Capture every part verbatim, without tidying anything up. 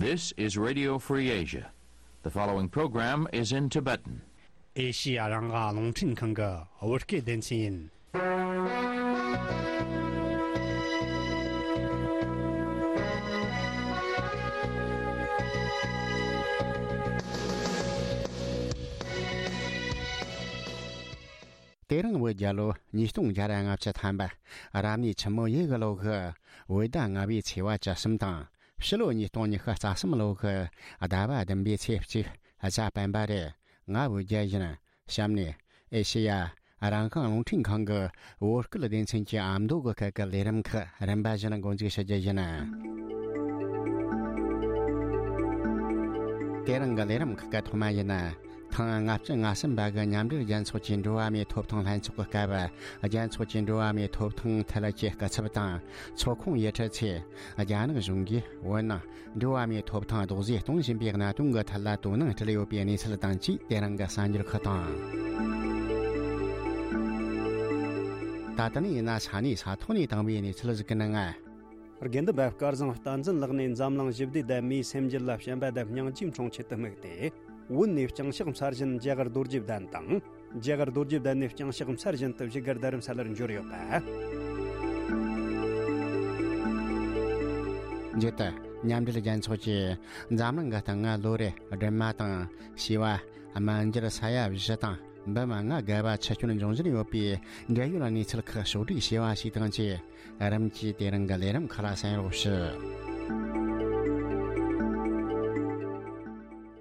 This is Radio Free Asia. The following program is in Tibetan. ཨེ་ཤི་ཡ་རང་དབང་རླུང་འཕྲིན་ཁང་གི་བོད་སྐད་སྡེ་ཚན་ཡིན། དེ་རིང་བོད་རྒྱལ་ལོ་ཉིས་སྟོང་བརྒྱ་ར་ལྔ་བཅུ་ཐམ་པ། རབ་གནས་ཆུ་མོ་ཡོས་གི་ལོ་གི་བོད་ཟླ་ལྔ་པའི་ཚེས་པ་བཅུ་གསུམ་དང་། ཕྱི་ལོ་ཉིས་སྟོང་ཉི་ཤུ་རྩ་གསུམ་ལོ་གི་ཟླ་བ་བདུན་པའི་ཚེས་གཅིག་གཟའ་སྤེན་པ་རེད། ང་བོད་རྒྱལ་ཡིན། གཤམ་ནས་ཨེ་ཤེ་ཡ་རང་དབང་རླུང་འཕྲིན་ཁང་གི་བོད་སྐད་སྡེ་ཚན་གྱི་ཨ་མདོ་གི་སྐད་ཀྱི་ལས་རིམ་ཁག་རིམ་པ་བཞིན་འགོ་འཛུགས་ཞུ་རྒྱུ་ཡིན། དེ་རིང་གི་ལས་རིམ་ཁག་གི་ཐོག་མ་ཡིན། ཐེངས་ལྔ་བཅུ་ང་གསུམ་པ་གི་མཉམ་འབྲེལ་རྒྱལ་ཚོགས་ཀྱི་འགྲོ་བ་མིའི་ཐོབ་ཐང་ལྷན་ཚོགས་ཀྱི་སྐབས། རྒྱལ་ཚོགས་ཀྱི་འགྲོ་བ་མིའི་ཐོབ་ཐང་ཐད་ཀྱི་སྐུ་ཚབ་དང་ཚོགས་ཁོངས་ཡུལ་གྲུ་ཚོས་རྒྱ་ནག་གཞུང་གིས་བོད་ནང་འགྲོ་བ་མིའི་ཐོབ་ཐང་རྡོག་རྫིས་གཏོང་བཞིན་པའི་གནད་དོན་གྱི་ཐད་ལ་དོ་སྣང་སྤྲད་ཡོད་པའི་གནས་ཚུལ་དང་བཅས། དེ་རིང་གི་གསར་འགྱུར་ཁག་དང་། ད་ལྟ་ནས་ཡིན་ན་ས་གནས་ས་ཐོག་ནས་བཏང་བའི་གནས་ཚུལ་ཞིག་གི་ནང་། དགེ་འདུན་པ་སྐལ་བཟང་བསྟན་འཛིན་ལགས་ནས་འཛམ་གླིང་ཞི་བདེ་དང་མིའི་སེམས་རྒྱུད་ལ་བྱམས་པ་དང་སྙིང་རྗེའི་འཕྲེང་ཆེད་དུ་དམིགས་ཏེ། བོད་ནས་ལྕང་ཕྱག་འཚར་ཞིང་རྒྱ་གར་རྡོ་རྗེ་གདན་དང་། རྒྱ་གར་རྡོ་རྗེ་གདན་ནས་ལྕང་ཕྱག་འཚར་བཞིན་དུ་བཞུགས་སྒར་རྡ་རམ་ས་ལར་འབྱོར་ཡོད་པ། མཇུག་ཏུ་མཉམ་འབྲེལ་རྒྱལ་ཚོགས་ཀྱིས་འཛམ་གླིང་གི་སྟེང་ལོ་རེ་སྦྲུམ་མ་དང་བྱིས་པ་སྨན་སྦྱོར་ས་ཡ་བཞི་དང་འབུམ་ལྔ་བརྒལ་བ་འཆི་སྐྱོན་འབྱུང་བཞིན་ཡོད་པའི་འབྲེལ་ཡོད་གནས་ཚུལ་ཁག་ཕྱོགས་བསྒྲིགས་བྱས་པ་ཞིག་དང་བཅས། རིམ་གྱིས་དེ་རིང་གི་ལས་རིམ་ཁག་ལ་གསན་རོགས་ཞུ།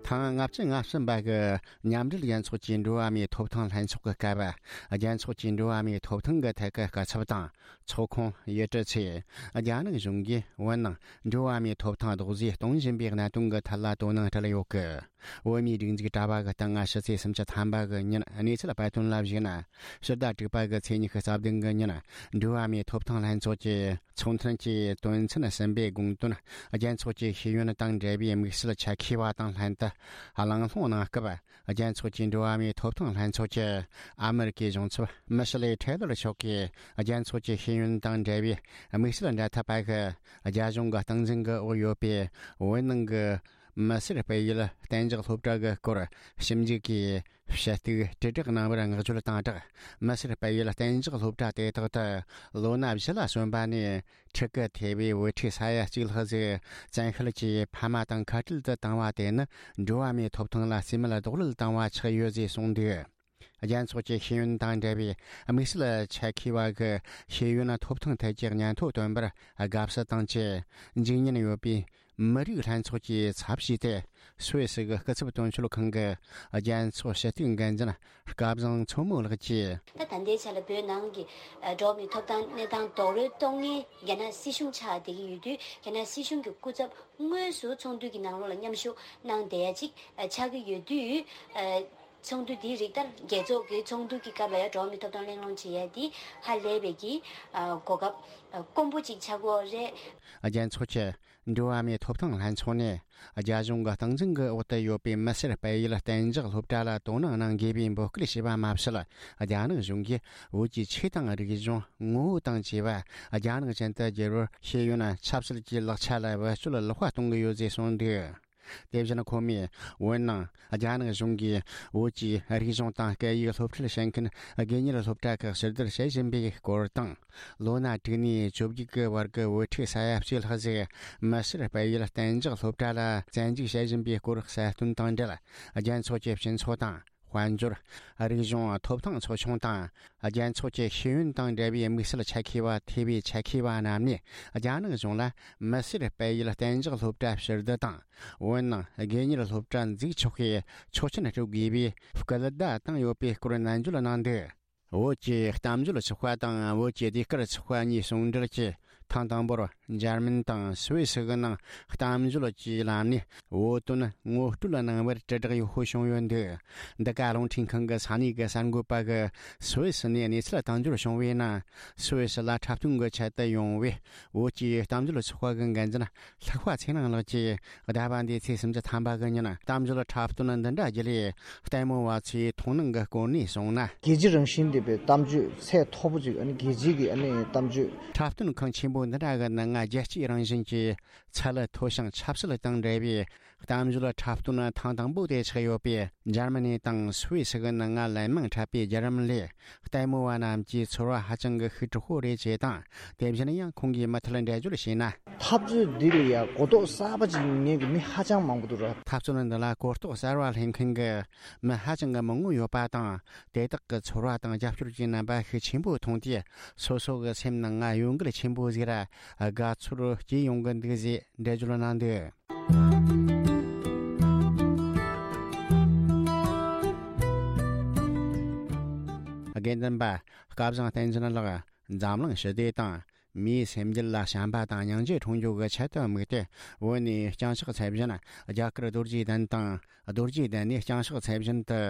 ཐེངས་ལྔ་བཅུ་ང་གསུམ་པ་གི་མཉམ་འབྲེལ་རྒྱལ་ཚོགས་ཀྱི་འགྲོ་བ་མིའི་ཐོབ་ཐང་ལྷན་ཚོགས་ཀྱི་སྐབས། རྒྱལ་ཚོགས་ཀྱི་འགྲོ་བ་མིའི་ཐོབ་ཐང་གི་ཐད་ཀྱི་སྐུ་ཚབ་དང་ཚོགས་ཁོངས་ཡུལ་གྲུ་ཚོས་རྒྱ་ནག་གཞུང་གིས་བོད་ནང་འགྲོ་བ་མིའི་ཐོབ་ཐང་རྡོག་རྫིས་གཏོང་བཞིན་པའི་གནད་དོན་གྱི་ཐད་ལ་དོ་སྣང་སྤྲད་ཡོད་གི། བོད་མིའི་སྒྲིག་འཛུགས་དྲ་བ་གི་སྟེང་ང་ཕྱི་ཚེས་སུམ་ཅུ་ཐམ་པ་གི་ཉིན་གནས་ཚུལ་སྤེལ་དོན་ལ་གཞིགས་ན། ཕྱི་ཟླ་དྲུག་པ་གི་ཚེས་ཉི་ཤུ་རྩ་བདུན་གི་ཉིན་འགྲོ་བ་མིའི་ཐོབ་ཐང་ལྷན་ཚོགས་ཀྱི་ཚོགས་མཐུན་གྱི་དོན་ཚན་གསུམ་པའི་དགོངས་དོན་རྒྱལ་ཚོགས་ཀྱི་ཤེས་ཡོན་དང་འབྲེལ་བའི་དམིགས་བསལ་ཆེད་མཁས་པ་དང་ལྷན་དུ་གླེང་སློང་གནང་སྐབས། རྒྱལ་ཚོགས་ཀྱི་འགྲོ་བ་མིའི་ཐོབ་ཐང་ལྷན་ཚོགས་ཀྱི་ཨ་མེ་རི་ཀའི་གཞུང་ཚབ་མི་ཤི་ལི་ཁྲེ་ལར་མཆོག་གིས། རྒྱལ་ཚོགས་ཀྱི་ཤེས་ཡོན་དང་འབྲེལ་བའི་དམིགས་བསལ་འབྲེལ་མཐུད་པ་གི་རྒྱ་གཞུང་གི་སྟངས་འཛིན་གྱི་འོག་ཡོད་པའི་བོད་ནང་གི་མི་སེར་སྤེལ་ཡུལ་གཏན་འཇགས་སློབ་གྲྭ་གི་སྐོར་ཞིབ་འཇུག་གིས་ཞུ་གཏུག་དྲིལ་བསྒྲགས་གནང་བར་བསྔགས་བརྗོད་དང་སྦྲགས། མི་སེར་སྤེལ་ཡུལ་གཏན་འཇགས་སློབ་གྲྭ་དེ་དག་ཏུ་ལོ་ན་བཞི་ལ་སོན་པ་ནས་ཕྲུ་གུ་ཐེ་བའི་བུ་ཕྲུག་ས་ཡ་གཅིག་ལྷག་ཟིག་བཙན་ཤེད་ཀྱིས་ཕ་མ་དང་ཁ་བྲལ་དུ་བཏང་བ་དེ་ནི་འགྲོ་བ་མིའི་ཐོབ་ཐང་ལ་རྩིས་མེད་རྡོག་རོལ་བཏང་བ་ཆགས་ཡོད་ཅེས་གསུངས་འདུག། རྒྱལ་ཚོགས་ཀྱི་ཤེས་ཡོན་དང་འབྲེལ་བའི་དམིགས་བསལ་ཆེད་མཁས་པ་གི་ཤེས་ཡོན་ཐོབ་ཐང་ཐད་ཀྱི་སྙན་ཐོ་བཏོན་པར་དགའ་བསུ་དང་བཅས། འཇིགས་ཉེན་ཡོད་པའི་མི་རིགས་ལྷན་ཚོགས་ཀྱི་ཚབ་བྱས་ཏེ། སུད་སི་གི་སྐུ་ཚབ་དོན་གཅོད་ཁང་གི་རྒྱལ་ཚོགས་ཞུ་གཏུག་འགན་འཛིན་སྐལ་བཟང་མཚོ་མོ་ལགས་ཀྱིས། ད་ད་ལྟའི་ཆ་ལ་བོད་ནང་གི་ཨ་འགྲོ་བ་མིའི་ཐོབ་ཐང་གནས་སྟངས་རྡོག་རོལ་གཏོང་མཁན་རྒྱ་ནག་སྲིད་གཞུང་ཆགས་བསྡད་ཀྱི་ཡོད་དུས། རྒྱ་ནག་སྲིད་གཞུང་གི་སྐུ་ཚབ་དངོས་སུ་ཚོགས་འདུ་གི་ནང་ལོགས་ལ་མཉམ་ཞུགས་གནང་བསྡད་ཡ་ཅིག་ཨ་ཆགས་ཀྱི་ཡོད་དུས། ཨ་ཚོགས་འདུ་འདིའི་རིགས་ལྟར་རྒྱལ་ཚོགས་ཀྱི་ཚོགས་འདུ་གི་སྐབས་ལ་ཡང་འགྲོ་བ་མིའི་ཐོབ་ཐང་གླེང་སློང་བྱེད་ཡ་འདི་ཧ་ལས་པའི་གི་ཨ་གོ་སྐབས་ཨ་དཀོན་པོ་ཅིག་ཆགས་ཀྱི་ཡོད་རེད། རྒྱལ་ཚོགས་ཀྱི་འགྲོ་བ་མིའི་ཐོབ་ཐང་ལྷན་ཚོགས་ནས་རྒྱ་གཞུང་གི་སྟངས་འཛིན་གྱི་འོག་ཏུ་ཡོད་པའི་མི་སེར་སྤེལ་ཡུལ་གཏན་འཇགས་སློབ་གྲྭ་ལ་དོ་སྣང་གནང་དགོས་པའི་འབོད་སྐུལ་བྱས་པ་མ་ཟད། རྒྱ་ནག་གཞུང་གིས་བོད་ཀྱི་ཆོས་དང་རིག་གཞུང་ངོ་བོ་དང་བཅས་པ་རྒྱ་ནག་ཅན་དུ་བསྒྱུར་བར་ཤེས་ཡོན་ཆབ་སྲིད་ཀྱི་ལག་ཆ་ལ་བེད་སྤྱོད་ལེགས་པ་གཏོང་གི་ཡོད་ཅེས་གསུངས་འདུག། དེ་བཞིན་ཁོ་མོས་བོད་ནང་རྒྱ་ནག་གཞུང་གིས་བོད་ཀྱི་རིག་གཞུང་དང་སྐད་ཡིག་སློབ་ཁྲིད་བྱེད་མཁན་དགོས་གཉེར་སློབ་གྲྭ་ཁག་ཕྱིར་བསྡུ་བྱེད་བཞིན་པའི་སྐོར་དང་། ལོ་ན་དྲུག་ནས་བཅོ་བརྒྱད་ཀྱི་བར་གྱི་བུ་ཕྲུག་ས་ཡ་གཅིག་ལྷག་ཟིག་མི་སེར་སྤེལ་ཡུལ་གཏན་འཇགས་སློབ་གྲྭ་ལ་བཙན་འཇུག་བྱེད་བཞིན་པའི་སྐོར་གསལ་སྟོན་དང་འབྲེལ། རྒྱལ་ཚོགས་ཀྱི་སྤྱི་ཚོགས་དང་དཔལ་འབྱོར། རིག་གཞུང་ཐོབ་ཐང་ཚོགས་ཆུང་དང་། རྒྱལ་ཚོགས་ཀྱི་ཤེས་ཡོན་དང་འབྲེལ་བའི་དམིགས་བསལ་ཆེད་མཁས་པ་ཐེ་བའི་ཆེད་མཁས་པ་རྣམས་ནས་རྒྱ་ནག་གཞུང་ལ་མི་སེར་སྤེལ་ཡུལ་གཏན་འཇགས་སློབ་གྲྭ་ཕྱིར་བསྡུ་དང་། བོད་ནང་དགོས་གཉེར་སློབ་གྲྭ་འཛུགས་ཆོག་པའི་ཆོག་མཆན་སྤྲོད་དགོས་པའི་སྐུལ་བརྡ་བཏང་ཡོད་པའི་སྐོར་ནན་བརྗོད་གནང་འདུག། བོད་ཀྱི་གཏམ་བརྗོད་ཚོགས་པ་དང་བོད་ཀྱི་ཟློས་གར་ཚོགས་པ་གཉིས་ཟུང་འབྲེལ་གྱིས། ཐེངས་དང་པོར་འཇར་མན་དང་སུད་སི་གི་ནང་གཏམ་བརྗོད་ཀྱི་ལམ་ནས་བོད་དོན་ངོ་སྤྲོད་གནང་བར་དྲིལ་བསྒྲགས་ཡག་པོ་བྱུང་ཡོད་འདུག། འདི་ག་རླུང་འཕྲིན་ཁང་གི་ས་གནས་ཀྱི་གསར་འགོད་པ་གིས་སུད་སི་ནས་གནས་ཚུལ་དང་སྦྱོར་བྱུང་བའི་ནང་། སུད་སི་ལ་འཁྲབ་སྟོན་གྱི་ཆེད་དུ་ཡོང་བའི་བོད་ཀྱི་གཏམ་བརྗོད་ཚོགས་པ་གི་འགན་འཛིན་ལྷག་པ་ཚེ་རིང་ལགས་ཀྱིས། ཟླ་བ་འདིའི་ཚེས་སུམ་ཅུ་ཐམ་པ་གི་ཉིན་གཏམ་བརྗོད་འཁྲབ་སྟོན་འདི་འདྲ་བརྒྱུད་ལས་ལྟད་མོ་བ་ཚོའི་མཐོང་སྣང་གི་སྐོར་ནས་གསུངས་ན། རྒྱལ་སྤྱི་རང་བཞིན་ལྡན་པའི་གཏམ་བརྗོད་ཚད་མཐོ་པོ་ཅིག་ཨ་ནི་རྒྱལ་སྤྱི་གི་ཨ་ནི་གཏམ་བརྗོད། འཁྲབ་སྟོན་ཁང་ཆེན་པོ། འདི་འདྲ་གི་ནད་ང་རྒྱལ་སྤྱིའི་རང་བཞིན་གྱི་ཚད་ལ་མཐོ་ཞིང་ཆབ་སྲིད་དང་འབྲེལ་བའི་གཏམ་བརྗོད་འཁྲབ་སྟོན་ཐེངས་དང་པོ་དེ་ཆགས་ཡོད་པས། འཇར་མ་ནི་དང་སུད་སི་གི་ནད་ང་ལན་མང་འཁྲབ་པའི་བརྒྱུད་རིམ་ལས། ལྟད་མོ་བ་རྣམས་ཀྱི་ཚོར་བ་ཧ་ཅང་གི་ཤུགས་དྲག་པོ་རེད་ཅེས་དང་། དེ་བཞིན་ཡང་ཁོང་གིས་མུ་མཐུད་འགྲེལ་བརྗོད་བྱས་ན། འཐབ་རྩོད་འདི་ལ་ཡང་གོ་རྟོགས་གསར་པ་ཅིག་ཉན་གི་མི་ཧ་ཅང་མང་པོ་འདུག་ར། འཐབ་རྩོད་འདི་ལ་གོ་རྟོགས་གསར་བ་ལེན་མཁན་གྱི་མི་ཧ་ཅང་གི་མང་པོ་ཡོད་པ་དང་། དེ་དག་གི་ཚོར་བ་དང་རྒྱབ་སྐྱོར་གྱི་རྣམ་པ་ཤུགས་ཆེན་པོ་མཐོང་དུས། སོ་སོ་གི་སེམས་ནང་ང་གཡོ་འགུལ་ཆེན་པོ་ཟིག་ར་དགའ་ཚོར་སྐྱེ་ཡོང་གི་འདུག་ཅེས་འགྲེལ་བརྗོད་གནང་འདུག། དགེ་འདུན་པ་སྐལ་བཟང་བསྟན་འཛིན་ལགས། འཛམ་གླིང་ཞི་བདེ་དང་མིའི་སེམས་རྒྱུད་ལ་བྱམས་པ་དང་སྙིང་རྗེ་འཁྲུངས་རྒྱུ་གི་ཆེད་དུ་དམིགས་ཏེ། བོད་ནས་བརྐྱངས་ཕྱག་འཚལ་བཞིན་རྒྱ་གར་རྡོ་རྗེ་གདན་དང་། རྡོ་རྗེ་གདན་ནས་བརྐྱངས་ཕྱག་འཚལ་བཞིན་དུ་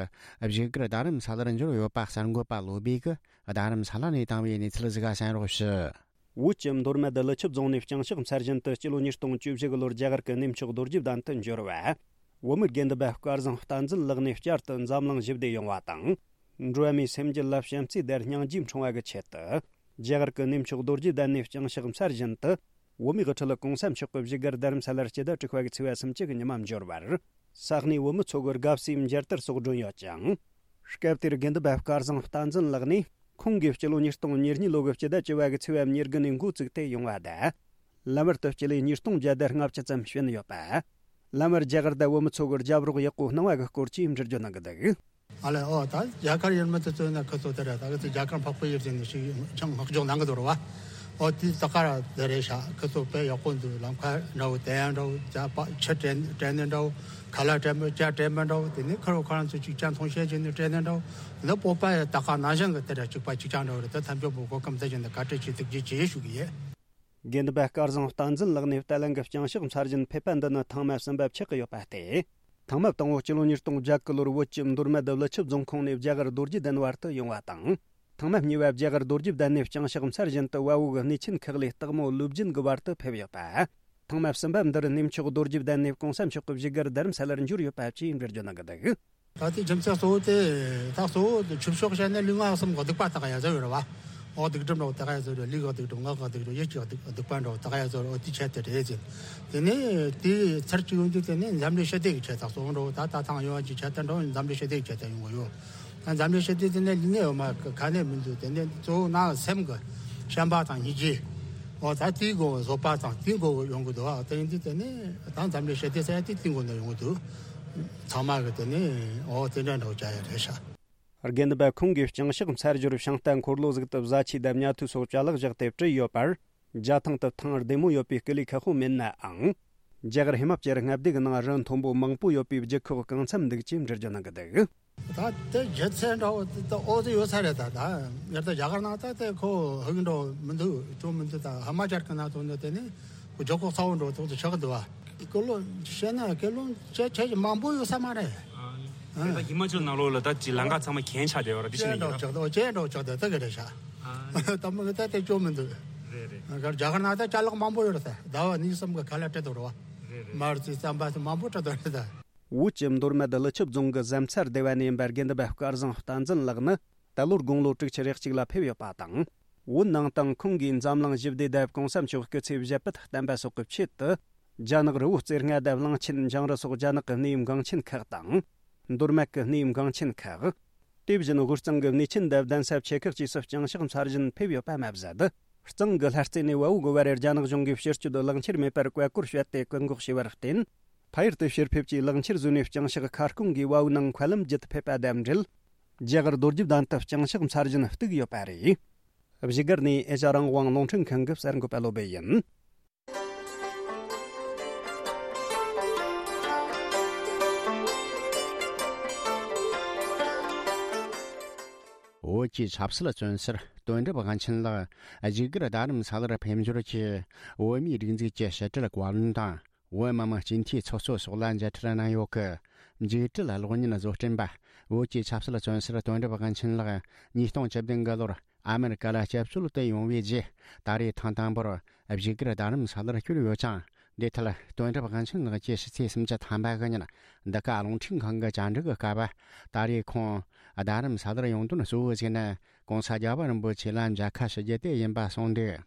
བཞུགས་སྒར་རྡ་རམ་ས་ལར་འབྱོར་ཡོད་པ་གསར་འགོད་པ་བློ་བྷེ་གིས་རྡ་རམ་ས་ལ་ནས་བཏང་བའི་གནས་ཚུལ་ཟིག་གསན་རོགས་ཞུ། བོད་ཀྱི་མདོ་སྨད་ཀླུ་ཆུ་རྫོང་ནས་བརྐྱངས་ཕྱག་འཚལ་བཞིན་དུ་སྤྱི་ལོ་ཉིས་སྟོང་བཅུ་བཞི་གི་ལོར་རྒྱ་གར་གྱི་གནས་མཆོག་རྡོ་རྗེ་གདན་དུ་འབྱོར་བ། བོད་མི་དགེ་འདུན་པ་སྐལ་བཟང་བསྟན་འཛིན་ལགས་ནས་བསྐྱར་དུ་འཛམ་གླིང་ཞི་བདེ་ཡོང་བ་དང་། འགྲོ་བ་མིའི་སེམས་རྒྱུད་ལ་བྱམས་བརྩེའི་དར་སྙིང་རྗེ་འཁྲུངས་པ་གི་ཆེད་དུ། རྒྱ་གར་གྱི་གནས་མཆོག་རྡོ་རྗེ་གདན་ནས་བརྐྱངས་ཕྱག་འཚལ་བཞིན་དུ། བོད་མིའི་དབུ་ཁྲིད་གོང་ས་མཆོག་གི་བཞུགས་སྒར་རྡ་རམ་ས་ལར་སྤྱི་ཟླ་དྲུག་པ་གི་ཚེས་པ་སུམ་ཅུ་གི་ཉི་མ་འབྱོར་བར། ས་གནས་བོད་མི་ཚོ་གི་དགའ་བསུའི་མཇལ་དར་སོགས་བསྒྲོན་ཡོད་ཅིང་། སྐབས་དེར་དགེ་འདུན་པ་སྐལ་བཟང་བསྟན་འཛིན་ལགས་ནས། ཁོང་གིས་སྤྱི་ལོ་ཉིས་སྟོང་ཉེར་གཉིས་ལོ་གི་སྤྱི་ཟླ་བཅུ་པ་གི་ཚེས་པ་ཉེར་དགུ་ནས་འགོ་བཙུགས་ཏེ་ཡོང་བ་དང་། ལམ་བར་དུ་སྤྱི་ལེ་ཉིས་སྟོང་བརྒྱ་དང་ལྔ་བཅུ་ཙམ་ཕྱིན་ཡོད་པ། ལམ་བར་རྒྱ་གར་དང་བོད་མི་ཚོ་གི་རྒྱབ་རོགས་ཡག་པོ་གནང་བ་གི་སྐོར་གྱི་འགྲེལ་བརྗོད་གནང་གི་འདུག། ཨ་ལས། ཨོ། ད་རྒྱ་གར་ཡུལ་མི་དེ་ཚོ་ནི་ཁི་ཚོ་དེ་རེད། ད་གི་ཚོ་རྒྱ་གར་འཕགས་པའི་ཡུལ་ཟེར་ནས་ཞིག་ཅང་བསྔགས་བརྗོད་གནང་གི་འདུག་རེད་བ། ཨོ། དེ་ད་ག་ར་དེ་རེད་ཤག། ཁི་ཚོ་དཔེ་ཡག་པོ་འདུག། ལམ་ཁ་འདྲ་བོ་དེ་ཡང་འདྲ་བོ། རྒྱ་པ་ཆུ་དྲན་དྲན་ནས་འདྲ་བོ། ཁ་ལག་དྲན་པ་ཇ་དྲན་པ་འདྲ་བོ། དེ་ནས་ཁ་རོག་ཁ་རང་ཚོ་གཅིག་ཅང་མཐོང་བཤད་བྱས་ནས་དྲན་ནས་འདྲ་བོ། དེ་ནས་སྤོབས་པ་ཡང་ད་ག་ནང་བཞིན་གི་དེ་འདྲ་གཅིག་པ་གཅིག་རྐྱང་འདྲ་བོ་རེད། ད་ཐམས་ཅད་པོ་གོ་སྐབས་འདི་བཞིན་དུ་བཀའ་དྲིན་ཆེ་ཐུགས་རྗེ་ཆེ་ཞུ་གི་ཡིན། དགེ་འདུན་པ་སྐལ་བཟང་བསྟན་འཛིན་ལགས་ནས་བརྟན་ལྷིང་གི་བརྐྱངས་ཕྱག་འཚལ་བཞིན་ཕེབས་པ་འདི་ནི་ཐེངས་མ་གསུམ་པ་ཆགས་ཀྱི་ཡོད་པ་སྟེ། ཐེངས་མ་དང་པོ་སྤྱི་ལོ་ཉིས་སྟོང་བརྒྱད་གི་ལོར་བོད་ཀྱི་མདོ་སྨད་དུ་ཀླུ་ཆུ་རྫོང་ཁོངས་ནས་རྒྱ་གར་རྡོ་རྗེ་གདན་བར་དུ་ཡོང་བ་དང་། ཐེངས་མ་གཉིས་པ་རྒྱ་གར་རྡོ་རྗེ་གདན་ནས་བརྐྱངས་ཕྱག་འཚལ་བཞིན་དུ་བལ་པོ་གི་གནས་ཆེན་ཁག་ལས་སྟག་མོ་ཀླུ་སྦྱིན་གྱི་བར་དུ་ཕེབས་ཡོད་པ། ཐེངས་མ་གསུམ་པ་འདིར་གནས་མཆོག་རྡོ་རྗེ་གདན་ནས་གོང་ས་མཆོག་གི་བཞུགས་སྒར་རྡ་རམ་ས་ལར་འབྱོར་ཡོད་པ་བཅས་འགྲེལ་བརྗོད་གནང་གི་འདུག། ད་ལྟའི་རྒྱུ་མཚན་གཙོ་བོ་དེ། ད་གཙོ་བོ་དེ་ཆོས་ཕྱོགས་བཤད་ན་ལུས་ངག་གསུམ་གྱི་སྡིག་པ་དག་ཡ་ཟེར་ཡོད་རེད་བ། འོག་སྡིག་སྒྲིབ་འདྲ་བོ་དག་ཡ་ཟེར་རེད། ལུས་ཀྱི་སྡིག་སྒྲིབ། ངག་གི་སྡིག་སྒྲིབ། ཡིད་ཀྱི་སྡིག་སྡིག་པ་འདྲ་བོ་དག་ཡ་ཟེར་རེད། འོ་དེའི་ཆེད་དུ་རེད་ཟེར། དེ་ནས་དེའི་ཚར་གཅིག་ཡོང་དུས་དེ་ནས་འཛམ་གླིང་ཞི་བདེ་གི་ཆེད་དུ་གཙོ་བོ་འདྲ་བོ། ད་ད་ཐེངས་ཡོང་བ་གི་ཆེད་དུ་འདྲ་བོ་འཛམ་གླིང་ཞི་བདེ་གི་ཆེད་དུ་ཡོང་གི་ཡོད། ད་འཛམ་གླིང་ཞི་བདེ་དེ་ནས་ལུས་ནས་ཡོད་མ་ག་ནས་མི་འདུག། དེ་ནས་གཙོ་བོ་ནང་སེམས་ཀྱི་བྱམས་པ་དང་སྙིང་རྗེ། འོ་ད་དེའི་སྒོ་བཟོད་པ་དང་དེའི་སྒོ་ཡོང་གི་འདུག། ཨ། དེ་ཡིན་དུས་དེ་ནས་ད་འཛམ་གླིང་ཞི་བདེ་ཟེར་ཡ་དེ་དེའི་སྒོ་ནས་ཡོང་གི་འདུག། ཚང་མ་གི་དེ་ནས་འོ་དེ་འདྲ་འདྲ་བོ་བྱ་ཡ་རེད་ཤག། དགེ་འདུན་པ་ཁོང་གིས་བརྐྱངས་ཕྱག་འཚལ་ཞོར་ཤིང་རྟ་འཁོར་ལོ་ཟིག་ཏུ་བཟའ་ཆས་དང་ཉལ་ཐུལ་སོགས་ཅ་ལག་བཞག་སྟེ་བྲིས་ཡོད་པར། རྒྱ་ཐང་དུ་ཐང་བདེ་མོ་ཡོད་པའི་སྐུ་ལུས་ཁག་པོ་མེད་ནའང་། རྒྱ་གར་ཧི་མ་ཅལ་མངའ་སྡེ་གི་ནང་རི་མཐོན་པོ་མང་པོ་ཡོད་པའི་རྒྱུ་ཁོག་གང་འཚམ་འདུག་ཅེས་འགྲེལ་བརྗོད་གནང་གི་འདུག། ད་དེ་རྒྱུ་མཚན་འདྲ་བོ་དེ་ད་ཨོ་ཙི་ཡོད་ས་རེད། ད་ད་ཡར་ད་རྒྱ་གར་ནང་ད་དེ་ཁོ་ཧུག་འགྲོ་མི་འདུག། ཅུང་མི་འདུག། ད་ཧི་མ་ཅལ་གི་ནང་དུ་འདུག། དེ་ནི་ཁོ་རྒྱུ་ཁོག་ཚ་བོ་འགྲོ་ཐོག་ཏུ་ཆགས་འདུག་བ། སྐུ་ལོ་བཤད་ན་སྐུ་ལོ་ཆེ་ཆེ་མང་པོ་ཡོད་ས་མ་རེད། ཨ། ཨ། ད་ཧི་མ་ཅལ་ནང་ལོགས་ལ་ད་ཅི་ལམ་ཁ་ཚང་མ་གྱེན་ཆགས་བསྡད་ཡོད་ར། དེ་ཅན་ཤེས་ནས་འགྲོ་ཡིན་ན། ཆགས་འདུག། ཅན་འགྲོ་ཆགས་འདུག། ད་ག་རེད་ཤག། ཨ། ད་མི་གི་ད་དེ་ཅུང་མི་འདུག། རེད་རེད། རྒྱ་གར་ནང་ད་ཅ་ལག་མང་པོ་ཡོད་རེད། ཟླ་བ་གཉིས་གསུམ་གི་ཁ་ལག་སྤྲད་འདུག་རེད་བ། རེད་རེད། མར་ཙི་རྩམ་པ་ཚོ་མང་པོ་སྤྲད་འདུག་རེད་ད། བོད་ཀྱི་མདོ་སྨད་ཀླུ་ཆུ་རྫོང་གི་གཟན་རྩར་སྡེ་བ་ནས་ཡིན་པ་དགེ་འདུན་པ་སྐལ་བཟང་བསྟན་འཛིན་ལགས་ནི་ད་ལོར་དགུང་ལོ་དྲུག་ཅུ་རེ་གཅིག་ལ་ཕེབས་ཡོད་པ་དང་། བོད་ནང་དུ་ཁོང་གིས་འཛམ་གླིང་ཞི་བདེ་དང་གོང་ས་མཆོག་སྐུ་ཚེ་ཞབས་པད་བརྟན་པ་སོགས་ཀྱི་ཆེད་དུ། རྒྱ་ནག་རི་བོ་རྩེ་ལྔ་དང་གླང་ཆེན་འཇང་རི་སོགས་རྒྱ་ནག་གི་གནས་ཡུལ་འགངས་ཆེན་ཁག་དང་། མདོ་སྨད་ཀྱི་གནས་ཡུལ་འགངས་ཆེན་ཁག། དེ་བཞིན་དབུས་གཙང་གི་གནས་ཆེན་དང་གདན་ས་ཆེ་ཁག་བཅས་སུ་བརྐྱངས་ཕྱག་འཚལ་བཞིན་ཕེབས་ཡོད་པ་མ་ཟད། གཙང་གི་ལྷ་རྩེ་ནས་བལ་པོ་གི་བར་རེར་རྒྱ་ནག་གཞུང་གིས་ཕྱིར་སྐྱོད་ལག་འཁྱེར་མེད་པར་བཀའ་བཀོད་བྱས་ཏེ་བཀག་འགོག་བྱས་པར་བརྟེན། ཕ་ཡུལ་དུ་ཕྱིར་ཕེབས་ཀྱིས་ལག་འཁྱེར་བཟོས་ནས་བརྐྱངས་ཕྱག་ཁ་སྐོང་གིས་བལ་པོའི་ནང་མཁའ་ལམ་བརྒྱུད་ཕེབས་པ་དང་འབྲེལ། རྒྱ་གར་རྡོ་རྗེ་གདན་དུ་བརྐྱངས་ཕྱག་འཚལ་བཞིན་བཏུགས་ཡོད་པ་རེད། བཞུགས་སྒར་ནས་ཨེ་ཤ་རང་དབང་རླུང་འཕྲིན་ཁང་གི་གསར་འགོད་པ་བློ་བྷེ་ཡིན། བོད་ཀྱི་ཆབ་སྲིད་བཙོན་ཟུར་དོན་གྲུབ་དབང་ཆེན་ལགས་བཞུགས་སྒར་རྡ་རམ་ས་ལར་ཕེབས་འབྱོར་གྱིས། བོད་མིའི་སྒྲིག་འཛུགས་ཀྱི་ཕྱི་དྲིལ་བཀའ་བློན་དང་། བོད་མི་མང་སྤྱི་འཐུས་ཚོགས་གཙོ་སོགས་ལ་མཇལ་འཕྲད་གནང་ཡོད་སྐུ། མཇུག་འབྲེལ་གློག་བརྙན་བཟོ་སྐྲུན་པ། བོད་ཀྱི་ཆབ་སྲིད་བཙོན་ཟུར་དོན་གྲུབ་དབང་ཆེན་ལགས་ཉིས་སྟོང་བཅུ་བདུན་གི་ལོར་ཨ་མེ་རི་ཀ་ལ་སྐྱབས་བཅོལ་དུ་ཡོང་བའི་རྗེས། ད་རེས་ཐེངས་དང་པོར་བཞུགས་སྒར་རྡ་རམ་ས་ལར་བསྐྱོད་ཡོད་ཅིང་། འདི་ཐད་དོན་གྲུབ་དབང་ཆེན་ལགས་ཀྱིས་ཕྱི་ཚེས་སུམ་ཅུ་ཐམ་པ་གི་ཉིན་འདི་ག་རླུང་འཕྲིན་ཁང་གི་བཅར་འདྲི་གི་སྐབས། ད་རེས་ཁོང་རྡ་རམ་ས་ལར་ཡོང་དོན་གཙོ་བོ་ཞིག་ནི་༸གོང་ས་༸རྒྱལ་བ་རིན་པོ་ཆེ་ལ་མཇལ་ཁ་ཞུ་རྒྱུ་དེ་ཡིན་པ་གསུངས་འདུག།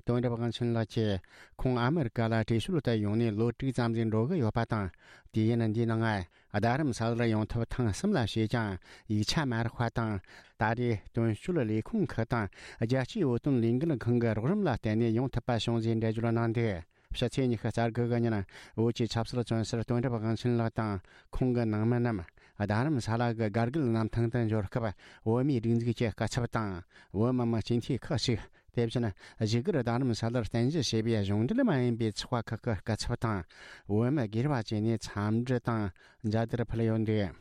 དོན་གྲུབ་དབང་ཆེན་ལགས་ཀྱིས་ཁོང་ཨ་མི་རི་ཀ་ལ་བྲོས་བྱོལ་དུ་ཡོང་ནས་ལོ་དྲུག་ཙམ་ཞིག་འགྲོ་གི་ཡོད་པ་དང་། དུས་ཡུན་འདིའི་ནང་རྡ་རམ་ས་ལར་ཡོང་ཐབས་ཐེངས་གསུམ་ལ་བྱས་ཀྱང་ཡིག་ཆ་མ་རག་པ་དང་། ད་རེས་དོན་གཅོད་ལས་ཁུངས་ཁག་དང་རྒྱལ་སྤྱིའི་བོད་དོན་ལས་འགུལ་ཁང་གི་རོགས་རམ་ལ་བརྟེན་ནས་ཡོང་ཐུབ་པ་བྱུང་ཞེས་འགྲེལ་བརྗོད་གནང་འདུག། ཕྱི་ཚེས་ཉི་ཤུ་རྩ་དགུ་གི་ཉིན་བོད་ཀྱི་ཆབ་སྲིད་བཙོན་ཟུར་དོན་གྲུབ་དབང་ཆེན་ལགས་དང་ཁོང་གི་ནང་མི་རྣམས་རྡ་རམ་ས་ལ་གི་དགའ་རྒུད་གནམ་ཐང་དུ་འབྱོར་སྐབས། བོད་མིའི་སྒྲིག་འཛུགས་ཀྱི་སྐུ་ཚབ་དང་བོད་མི་མང་སྤྱི་འཐུས་ཁག་ཅིག། དེ་བཞིན་བཞུགས་སྒར་རྡ་རམ་ས་ལར་རྟེན་གཞི་བྱས་པའི་གཞུང་འབྲེལ་མ་ཡིན་པའི་ཚོགས་པ་ཁག་གི་སྐུ་ཚབ་དང་བོད་མི་སྒེར་བ་བཅས་ནས་འཚམས་འདྲི་དང་མཇལ་དར་ཕུལ་ཡོད་འདུག།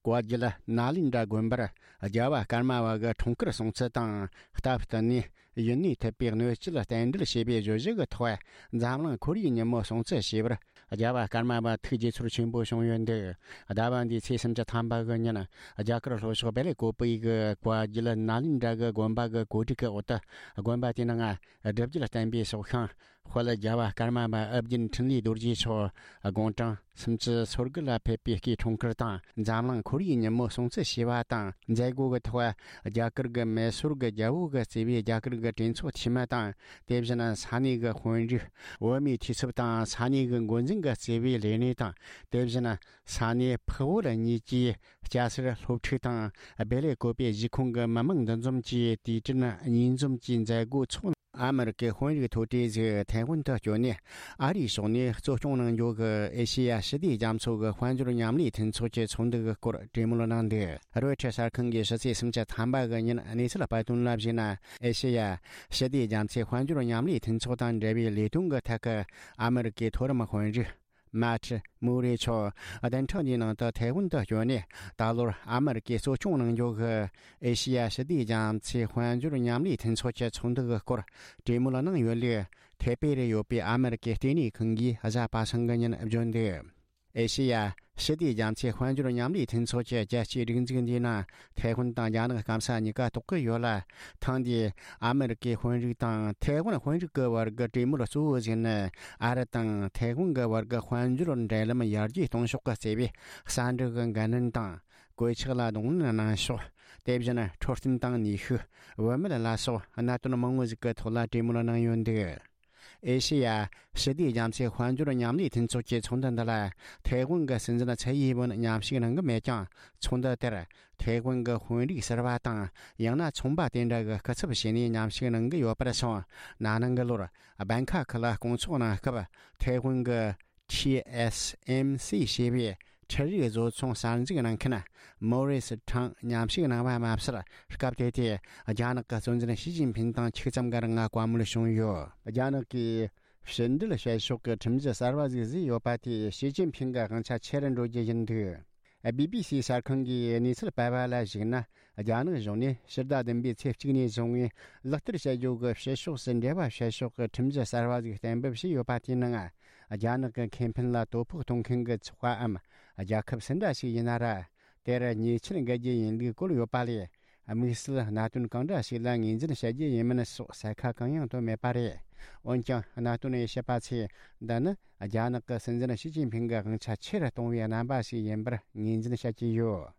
བཀའ་བརྒྱུད་ནཱ་ལེནྡྲ་དགོན་པར་རྒྱལ་བ་ཀརྨ་པ་གི་འཁྲུངས་སྐར་སྲུང་བརྩི་དང་། སྟབས་བསྟུན་ནས་ཡུན་གནས་ཐུབ་པའི་གནས་ཚུལ་བསྟན་འགྲེལ་བྱས་པའི་བརྗོད་གཞི་གི་ཐོག་འཛམ་གླིང་ཁོར་ཡུག་ཉིན་མོ་སྲུང་བརྩི་ཞེས་པར། རྒྱལ་བ་ཀརྨ་པ་ཐུགས་དགྱེས་ཚོར་ཆེན་པོ་བྱུང་ཡོད་འདུག། ཟླ་བ་འདིའི་ཚེས་སུམ་ཅུ་ཐམ་པ་གི་ཉིན། རྒྱ་གར་ལྷོ་ཕྱོགས་བེ་ལེ་ཀོ་པི་གི་བཀའ་བརྒྱུད་ནཱ་ལེནྡྲ་གི་དགོན་པ་གི་གོ་སྒྲིག་གི་འོག་ཏུ། དགོན་པ་དེའི་ནང་སྒྲུབ་བརྒྱུད་བསྟན་པའི་སྲོག་ཤིང་དཔལ་རྒྱལ་བ་ཀརྨ་པ་ཨོ་རྒྱན་འཕྲིན་ལས་རྡོ་རྗེ་མཆོག་དགུང་གྲངས་སུམ་ཅུ་སོ་དགུ་ལ་ཕེབས་པའི་སྐུའི་འཁྲུངས་སྐར་དང་། འཛམ་གླིང་ཁོར་ཡུག་ཉིན་མོ་སྲུང་བརྩི་ཞེས་པ་དང་མཛད་སྒོ་གི་ཐོག་རྒྱ་གར་གྱི་མེ་སོར་གྱི་རྒྱལ་པོ་གིས་གཙོས་པའི་རྒྱ་གར་གྱི་གྲོས་ཚོགས་འཐུས་མི་དང་། དེ་བཞིན་ས་གནས་ཀྱི་དཔོན་རིགས། བོད་མིའི་འཐུས་ཚབ་དང་ས་གནས་ཀྱི་འགོ་འཛིན་གྱིས་གཙོས་པའི་ལས་སྣེ་དང་། དེ་བཞིན་ས་གནས་འཕགས་བོད་གཉིས་ཀྱི་སྐྱ་སེར་སློབ་ཕྲུག་དང་། བེ་ལེ་ཀོ་པའི་གཞིས་ཁོངས་ཀྱི་མི་མང་འདུ་འཛོམས་ཀྱིས་དུས་དྲན་གཉིས་འཛོམས་ཀྱི་མཛད་སྒོ་འཚོགས། ཨ་མི་རི་ཀའི་དཔོན་རིགས་མཐོ་གྲས་ཟིག་ཐའེ་ཝན་དུ་བསྐྱོད་ནས། ཨ་རིའི་ཕྱོགས་ནས་གཙོ་སྐྱོང་གནང་རྒྱུ་གི་ཨེ་ཤེ་ཡ་ཞི་བདེ་རྒྱ་མཚོ་གི་དཔལ་འབྱོར་མཉམ་ལས་མཐུན་ཚོགས་ཀྱི་ཚོགས་འདུ་གི་སྐོར་གྲོས་མོལ་གནང་འདུག། རོའི་ཊར་གསར་ཁང་གིས་ཕྱི་ཚེས་སུམ་ཅུ་ཐམ་པ་གི་ཉིན་གནས་ཚུལ་སྤེལ་དོན་ལ་གཞིགས་ན། ཨེ་ཤེ་ཡ་ཞི་བདེ་རྒྱ་མཚོའི་དཔལ་འབྱོར་མཉམ་ལས་མཐུན་ཚོགས་དང་འབྲེལ་བའི་ལས་དོན་གྱི་ཐད་ཀྱི་ཨ་མི་རི་ཀའི་མཐོ་རིམ་དཔོན་རིགས། མཱ་ཁྲི་མུ་རེ་མཆོག་བདུན་ཕྲག་འདིའི་ནང་དུ་ཐའེ་ཝན་དུ་བསྐྱོད་ནས། ད་ལོར་ཨ་མི་རི་ཀས་གཙོ་སྐྱོང་གནང་རྒྱུ་གི་ཨེ་ཤེ་ཡ་ཞི་བདེ་རྒྱ་མཚོའི་དཔལ་འབྱོར་མཉམ་ལས་མཐུན་ཚོགས་ཀྱི་ཚོགས་འདུ་གི་སྐོར་གྲོས་མོལ་གནང་ཡོད་ལུགས། ཐའེ་པེ་རུ་ཡོད་པའི་ཨ་མི་རི་ཀའི་ལྟེ་གནས་ཁང་གིས་གཟའ་པ་སངས་ཀྱི་ཉིན་བརྗོད་འདུག། ཨེ་ཤེ་ཡ་ཞི་བདེ་རྒྱ་མཚོའི་དཔལ་འབྱོར་མཉམ་ལས་མཐུན་ཚོགས་ཀྱི་རྒྱལ་སྤྱིའི་སྒྲིག་འཛུགས་འདིའི་ནང་ཐའེ་ཝན་དང་རྒྱ་ནག་སྐམ་ས་གཉིས་ཀ་གཏོགས་ཀྱི་ཡོད་ལ། ཐེངས་འདིའི་ཨ་མི་རི་ཀའི་དཔོན་རིགས་དང་ཐའེ་ཝན་དཔོན་རིགས་ཀྱི་བར་གྱི་གྲོས་མོལ་གཙོ་བོ་ཞིག་ནི། ཨ་རི་དང་ཐའེ་ཝན་གྱི་བར་གྱི་དཔལ་འབྱོར་འབྲེལ་ལམ་ཡར་རྒྱས་གཏོང་ཕྱོགས་ཀྱི་རྩ་བའི་གསར་འགྲུབ་ཀྱི་འགན་ལེན་དང་། གོད་ཆག་ལ་གདོང་ལེན་གནང་ཕྱོགས། དེ་བཞིན་འཕྲོད་བསྟེན་དང་ནུས་ཤུགས། བུད་མེད་ལ་སོགས་གནད་དོན་མང་བོ་ཞིག་གི་ཐོག་ལ་གྲོས་མོལ་གནང་ཡོད་འདུག། ཨེ་ཤེ་ཡ་ཞི་བདེ་རྒྱ་མཚོའི་དཔལ་འབྱོར་མཉམ་ལས་མཐུན་ཚོགས་ཀྱི་ཚོགས་འདུ་འདི་ལ་ཐའེ་ཝན་གྱི་སྲིད་འཛིན་ཚའེ་ཡིན་ཝུན་མཉམ་ཞུགས་གནང་གི་མེད་ཀྱང་། ཚོགས་འདུ་དེར་ཐའེ་ཝན་གྱི་དཔོན་རིགས་ཟུར་པ་དང་། ཡང་ན་ཚོང་པ་དེ་འདྲ་གི་སྐུ་ཚབ་བྱས་ནས་མཉམ་ཞུགས་གནང་གི་ཡོད་པར་སོང་། ན་ནིང་གི་ལོར་སྦན་ཁ་ཁི་ལ་སྐོང་ཚོགས་གནང་སྐབས། ཐའེ་ཝན་གྱི་ཊི་ཨེས་ཨེམ་སི་ཞེས་པའི་འཕྲུལ་རིག་བཟོ་ཚོང་གསར་འཛུགས་གནང་མཁན་མོ་རི་སི་ཁྲང་མཉམ་ཞུགས་གནང་བ་མ་ཟད། སྐབས་དེ་དུས་རྒྱ་ནག་གི་གཙོ་འཛིན་ཞི་ཅིན་ཕིན་དང་ཆིག་ཙམ་གྱི་རིང་བཀའ་མོལ་བྱུང་ཡོད། རྒྱ་ནག་གིས་ཕྱི་འབྲེལ་བྱེད་ཕྱོགས་ཀྱི་ཁྲིམས་གཞི་གསར་བ་ཞིག་བཟོས་ཡོད་པ་དེས་ཞི་ཅིན་ཕིན་གྱི་དབང་ཆ་ཆེ་རུ་འགྲོ་རྒྱུ་ཡིན་འདུག། བི་བི་སི་གསར་ཁང་གིས་གནས་ཚུལ་སྤེལ་བ་ལ་གཞིགས་ན། རྒྱ་ནག་གཞུང་ནས་ཕྱི་ཟླ་བདུན་པའི་ཚེས་གཅིག་ནས་བཟུང་བའི་ལག་བསྟར་བྱ་རྒྱུ་གི་ཕྱི་ཕྱོགས་སུ་འབྲེལ་བ་བྱེད་ཕྱོགས་ཀྱི་ཁྲིམས་གཞི་གསར་བ་ཞིག་གཏན་འབེབས་བྱས་ཡོད་པ་དེའི་ནང་། རྒྱ་ནག་གི་ཁེ་ཕན་ལ་དོ་ཕོག་གཏོང་མཁན་གྱི་ཚོགས་པའམ་རྒྱལ་ཁབ་སུ་འདྲ་ཞིག་ཡིན་ན་ར། དེར་ཉེས་ཆད་འགེལ་རྒྱུ་ཡིན་ལུགས་བཀོད་ཡོད་པ་ལས། དམིགས་བསལ་གནད་དོན་གང་འདྲ་ཞིག་ལ་ངོས་འཛིན་བྱ་རྒྱུ་ཡིན་མིན་སོགས་གསལ་ཁ་གང་ཡང་བཏོན་མེད་པ་རེད། འོན་ཀྱང་། གནད་དོན་དབྱེ་ཞིབ་པ་ཚོས་འདི་ནི་རྒྱ་ནག་གི་སྲིད་འཛིན་ཞི་ཅིན་ཕིང་གི་དབང་ཆ་ཆེ་རུ་གཏོང་བའི་རྣམ་པ་ཞིག་ཡིན་པར་ངོས་འཛིན་བྱེད་ཀྱི་ཡོད།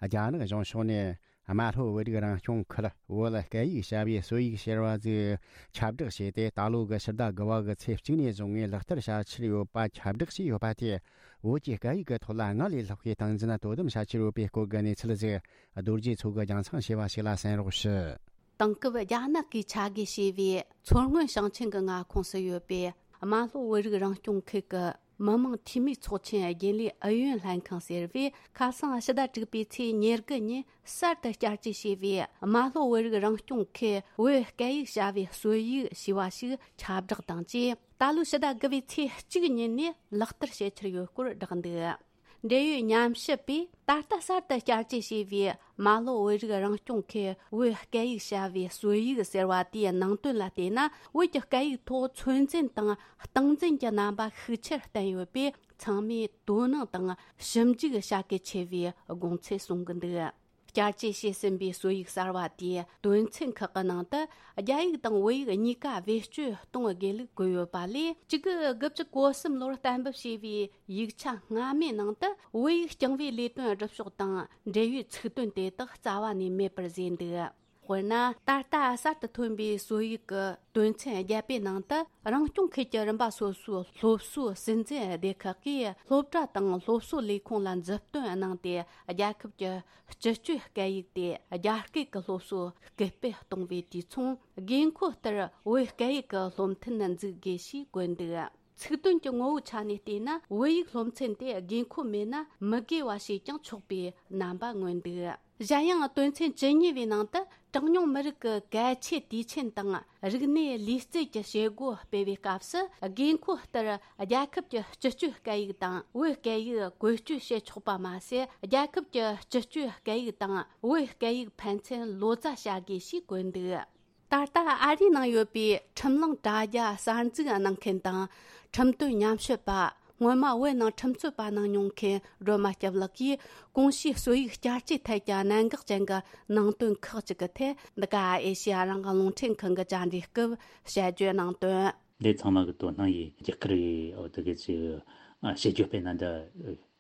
རྒྱ་ནག་གཞུང་ཕྱོགས་ནས། རྨ་ལྷོ་བོད་རིགས་རང་སྐྱོང་ཁུལ་བོད་སྐད་ཡིག་བྱ་བའི་སྲོལ་ཡིག་ཟེར་བ་ཟིག་ཁྱབ་བསྒྲགས་བྱས་ཏེ། ད་ལོ་གི་ཕྱི་ཟླ་དགུ་པ་གི་ཚེས་གཅིག་ནས་བཟུང་ངས་ལག་བསྟར་བྱ་འཆར་ཡོད་པ་ཁྱབ་བསྒྲགས་བྱས་ཡོད་པ་དེས། བོད་ཀྱི་སྐད་ཡིག་གི་ཐོག་ལ་སྔར་ལས་ལྷག་པའི་སྟངས་འཛིན་དོ་དམ་བྱ་འཆར་ཡོད་པའི་སྐོར་གྱི་གནས་ཚུལ་ཟིག་རྡོ་རྗེ་མཚོ་གིས་རྒྱང་སྲིང་བྱས་པ་ཞིག་ལ་གསན་རོགས་ཞུ། དེང་སྐབས་རྒྱ་ནག་གིས་ཆ་བགོས་བྱས་པའི་མཚོ་སྔོན་ཞིང་ཆེན་གྱི་མངའ་ཁོངས་སུ་ཡོད་པའི་རྨ་ལྷོ་བོད་རིགས་རང་སྐྱོང་ཁུལ་གྱི་མི་དམངས་འཐུས་མིའི་ཚོགས་ཆེན་རྒྱུན་ལས་ཨུ་ཡོན་ལྷན་ཁང་ཟེར་བས། ཁ་སང་ཕྱི་ཟླ་དྲུག་པའི་ཚེས་ཉེར་དགུ་ཉིན་གསར་དུ་བསྐྱར་བཅོས་བྱས་པའི་རྨ་ལྷོ་བོད་རིགས་རང་སྐྱོང་ཁུལ་བོད་སྐད་ཡིག་བྱ་བའི་སྲོལ་ཡིག་ཞེས་པ་ཞིག་ཁྱབ་བསྒྲགས་དང་བཅས། ད་ལོའི་ཕྱི་ཟླ་དགུ་པའི་ཚེས་གཅིག་ཉིན་ནས་ལག་བསྟར་བྱེད་འཆར་ཡོད་སྐོར་བསྒྲགས་འདུག། འབྲེལ་ཡོད་ཉམས་ཞིབ་པས། ད་ལྟ་གསར་དུ་བསྐྱར་བཅོས་བྱས་པའི་རྨ་ལྷོ་བོད་རིགས་རང་སྐྱོང་ཁུལ་བོད་སྐད་ཡིག་བྱ་བའི་སྲོལ་ཡིག་ཟེར་བ་དེའི་ནང་དོན་ལ་བལྟས་ན། བོད་ཀྱི་སྐད་ཡིག་ཐོག་ཚོད་འཛིན་དང་སྟངས་འཛིན་གྱི་རྣམ་པ་ཤུགས་ཆེར་བསྟན་ཡོད་པས། ཚང་མས་དོ་སྣང་དང་ཞིབ་འཇུག་བྱ་གལ་ཆེ་བའི་དགོངས་ཚུལ་གསུང་གི་འདུག། བསྐྱར་བཅོས་བྱས་ཟིན་པའི་སྲོལ་ཡིག་གསར་བ་དེའི་དོན་ཚན་ཁག་གི་ནང་དུ། རྒྱ་ཡིག་དང་བོད་ཡིག་གཉིས་ཀ་བེད་སྤྱོད་གཏོང་དགོས་ལུགས་བཀོད་ཡོད་པ་ལས། གཅིག་དགུ་བཅུ་གོ་གསུམ་ལོར་གཏན་འབེབས་བྱས་པའི་ཡིག་ཆ་སྔ་མའི་ནང་དུ། བོད་ཡིག་རྐྱང་བའི་ལས་དོན་སྒྲུབ་ཕྱོགས་དང་འབྲེལ་ཡོད་ཚིག་དོན་དེ་དག་རྩ་བ་ནས་མེད་པར་བཟོས་འདུག་དཔེར་ན། ད་ལྟ་གསར་དུ་ཐོན་པའི་སྲོལ་ཡིག་གི་དོན་ཚན་བརྒྱད་པའི་ནང་དུ། རང་སྐྱོང་ཁུལ་གྱི་རིམ་པ་སོ་སོའི་སློབ་གསོའི་སྲིད་འཛིན་སྡེ་ཁག་གིས་སློབ་གྲྭ་དང་སློབ་གསོ་ལས་ཁུངས་ལ་མཛུབ་སྟོན་གནང་སྟེ། རྒྱལ་ཁབ་ཀྱི་སྤྱི་སྤྱོད་སྐད་ཡིག་དེ་རྒྱ་སྐད་ཀྱི་སློབ་གསོ་སྐུལ་སྤེལ་གཏོང་བའི་དུས་མཚུངས། དགོས་མཁོ་ལྟར་བོད་སྐད་ཡིག་གི་སློབ་ཐུན་འཛུགས་དགོས་ཞེས་བཀོད་འདུག་ཚིག་དོན་གྱི་ངོ་བོའི་ཆ་ནས་བལྟས་ན། བོད་ཡིག་སློབ་ཚན་དེ་དགོས་མཁོ་མེད་ན་མི་དགོས་པ་ཞེས་ཀྱང་ཆོག་པའི་རྣམ་པ་མངོན་འདུག་གཞན་ཡང་། དོན་ཚན་བཅུ་གཉིས་པའི་ནང་དུ། གྲངས་ཉུང་མི་རིགས་ཀྱི་གལ་ཆེའི་དུས་ཆེན་དང་རིག་གནས་ལུས་རྩལ་གྱི་བྱེད་སྒོ་སྤེལ་བའི་སྐབས་སུ། དགོས་མཁོ་ལྟར་རྒྱལ་ཁབ་ཀྱི་སྤྱི་སྤྱོད་སྐད་ཡིག་དང་བོད་སྐད་ཡིག་བཀོལ་སྤྱོད་བྱེད་ཆོག་པ་མ་ཟད། རྒྱལ་ཁབ་ཀྱི་སྤྱི་སྤྱོད་སྐད་ཡིག་དང་བོད་སྐད་ཡིག་ཕན་ཚུན་ལོ་ཙཱ་བྱ་དགོས་ཞེས་བཀོད་འདུག་ད་ལྟ་ཨ་རིའི་ནང་ཡོད་པའི་ཁྲིམས་ལུང་དྲ་རྒྱ་གསར་འཛུགས་གནང་མཁན་དང་། ཁྲིམས་དོན་ཉམས་ཞིབ་པ། སྔོན་མ་བོད་ནང་ཁྲིམས་རྩོད་པ་གནང་མྱོང་མཁན་སྒྲོལ་མ་སྐྱབས་ལགས་ཀྱིས། གོང་ཞུས་སྲོལ་ཡིག་བསྐྱར་བཅོས་ཐད་ཀྱི་གནད་འགག་ཅན་གྱི་ནང་དོན་ཁག་ཅིག་གི་ཐད། འདི་ག་ཨེ་ཤེ་ཡ་རང་དབང་རླུང་འཕྲིན་ཁང་གི་བཅར་འདྲིའི་སྐབས་དཔྱད་བརྗོད་གནང་དོན། འདི་ཚང་མ་གི་དོ་སྣང་ཡིས་རྒྱ་གར་རེད། འོ་དེ་གི་ཅིག་ཨ་བྱེད་རྒྱུ་དཔེར་ན་འདི་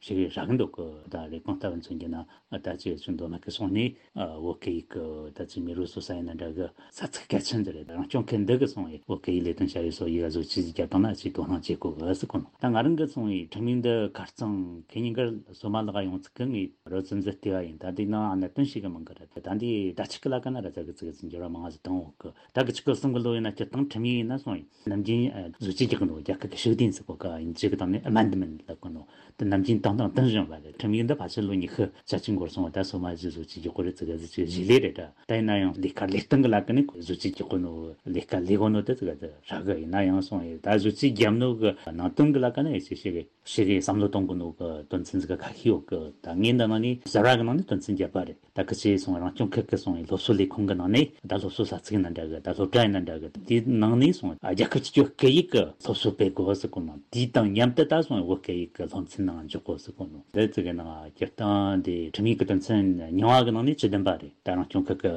ཞིག་རག་གི་འདུག་གི། ད་ལས་ཁུངས་ལྟ་བུ་མཚོན་རྒྱུ་ན། ཨ་ད་ཅིག་ཅུང་མདོ་སྨད་གི་སོང་ནས། ཨ་བོད་སྐད་ཡིག་གི་ད་ཅིག་མེ་རོ་གསོ་ས་ཡིན་ན་འདྲ་གི། ས་ཚིགས་གལ་ཆེན་འདི་རེད། རང་སྐྱོང་ཁུལ་འདི་གི་སོང་བའི་བོད་སྐད་ཡིག་ལས་དོན་བྱ་བའི་སྲོལ་ཡིག་བཟོ་བཅོས་ཅིག་བརྒྱབ་བཏང་ན་ཅིག་དོ་སྣང་བྱེད་དགོས་གི་ཟེར་གོ་ནོ། ད་ང་རང་གི་སོང་བའི་ཁྲིམས་ཡིག་འདི་ཁ་རྩང་ཁེ་ཉིན་གར་སོ་མ་ལག་ཡོང་ཚིག་གི་ངས་རོ་ཙམ་ཟིག་བལྟས་པ་ཡིན། ད་འདི་ནང་གནད་དོན་ཞིག་གི་མང་གི་རེད། ད་འདི་ད་ཆི་གི་ལ་ཀ་ན་ར་ཙ་གི་ཙི་གི་ཙི་འགྱུར་བ་མང་ཟིག་བཏང་འོག་གི། ད་གི་ཆི་གི་གསུམ་གི་ལོ་ཡིན་ན་སྤྱིར་བཏང་ཁྲིམས་ཡིག་ཡིན་ན་སོང་ཡིན། ནམ་རྒྱུན་ཨ་བཟོ་བཅོས་རྒྱག་གི་འདུག་རྒྱ་སྐད་ཀྱི་ཤུགས་ལྡན་ཟེར་གོ་ག་ཡིན་ཅིག་གི་དང་ནི་ཨ་མན་ཌི་མེན་ཊི་ལབ་གི་འདུག་དེ་ནམ་རྒྱུན་བཏང་བཏང་བཏང་བཞིན་པ་རེད། ཁྲིམས་ཡིག་འདི་ཕལ་ཆེར་ལོ་ཉི་ཤུ་རྩ་གཅིག་འགོར་སོང་བ། ད་སོ་མ་ཞིག་བཟོ་བཅོས་རྒྱག་གོ་རེད་ཙི་ག་ཟི་ཅིག་གཞི་ལས་རེད་ད། ད་ཡིན་ན་ཡང་ལས་ཀ་ལས་སྟངས་གི་ལ་ཀ་ནི་བཟོ་བཅོས་རྒྱག་གོ་ནོ། ལས་ཀ་ལས་གོ་ནོ་དེ་ཙི་ག་དེ་རག་གི་ཡིན་ན་ཡང་སོང་ཡིན། ད་བཟོ་བཅོས་རྒྱབ་ནོ་གི་ནང་དོན་གི་ལ་ཀ་ནི་ཡིན་ཞིག་ཞིག་གི་ཞིག་གི་བསམ་བློ་གཏོང་གི་ནོ་གི་དོན་ཚན་ཟི་ག་ཁ་ཤས་ཡོད་གི། ད་ངས་འདི་ནང་ནས་གསར་བ་གི་ནང་ནས་དོན་ཚན་བརྒྱབ་པ་རེད། ད་ཁི་ཆེ་སོང་རང་སྐྱོང་ཁུལ་གི་སོང་སློབ་གསོ་ལས་ཁུངས་གི་ནང་ནས། ད་སློབ་གསོ་ས་ཚིགས་ཡིན་ན་འདྲ་གི། ད་སློབ་གྲྭ་ཡིན་ན་འདྲ་གི། དེའི་ནང་ནས་སོང་རྒྱལ་ཁབ་སྤྱི་སྤྱོད་སྐད་ཡིག་གི་སློབ་གསོ་སྤེལ་དགོས་ཟེར་གོ་ནོ། དེའི་དང་མཉམ་དུ་ད་སོང་བོད་སྐད་ཡིག་གི་སློབ་ཚན་ནང་འཇོག་དགོས་ཟེར་གོ་ནོ། དེ་ཙི་གི་ནང་སྤྱིར་བཏང་དེ་ཁྲིམས་ཡིག་གི་དོན་ཚན་རྙིང་བ་གི་ནང་ནས་བཅུ་བདུན་པ་རེད། ད་རང་སྐྱོང་ཁུལ་གི་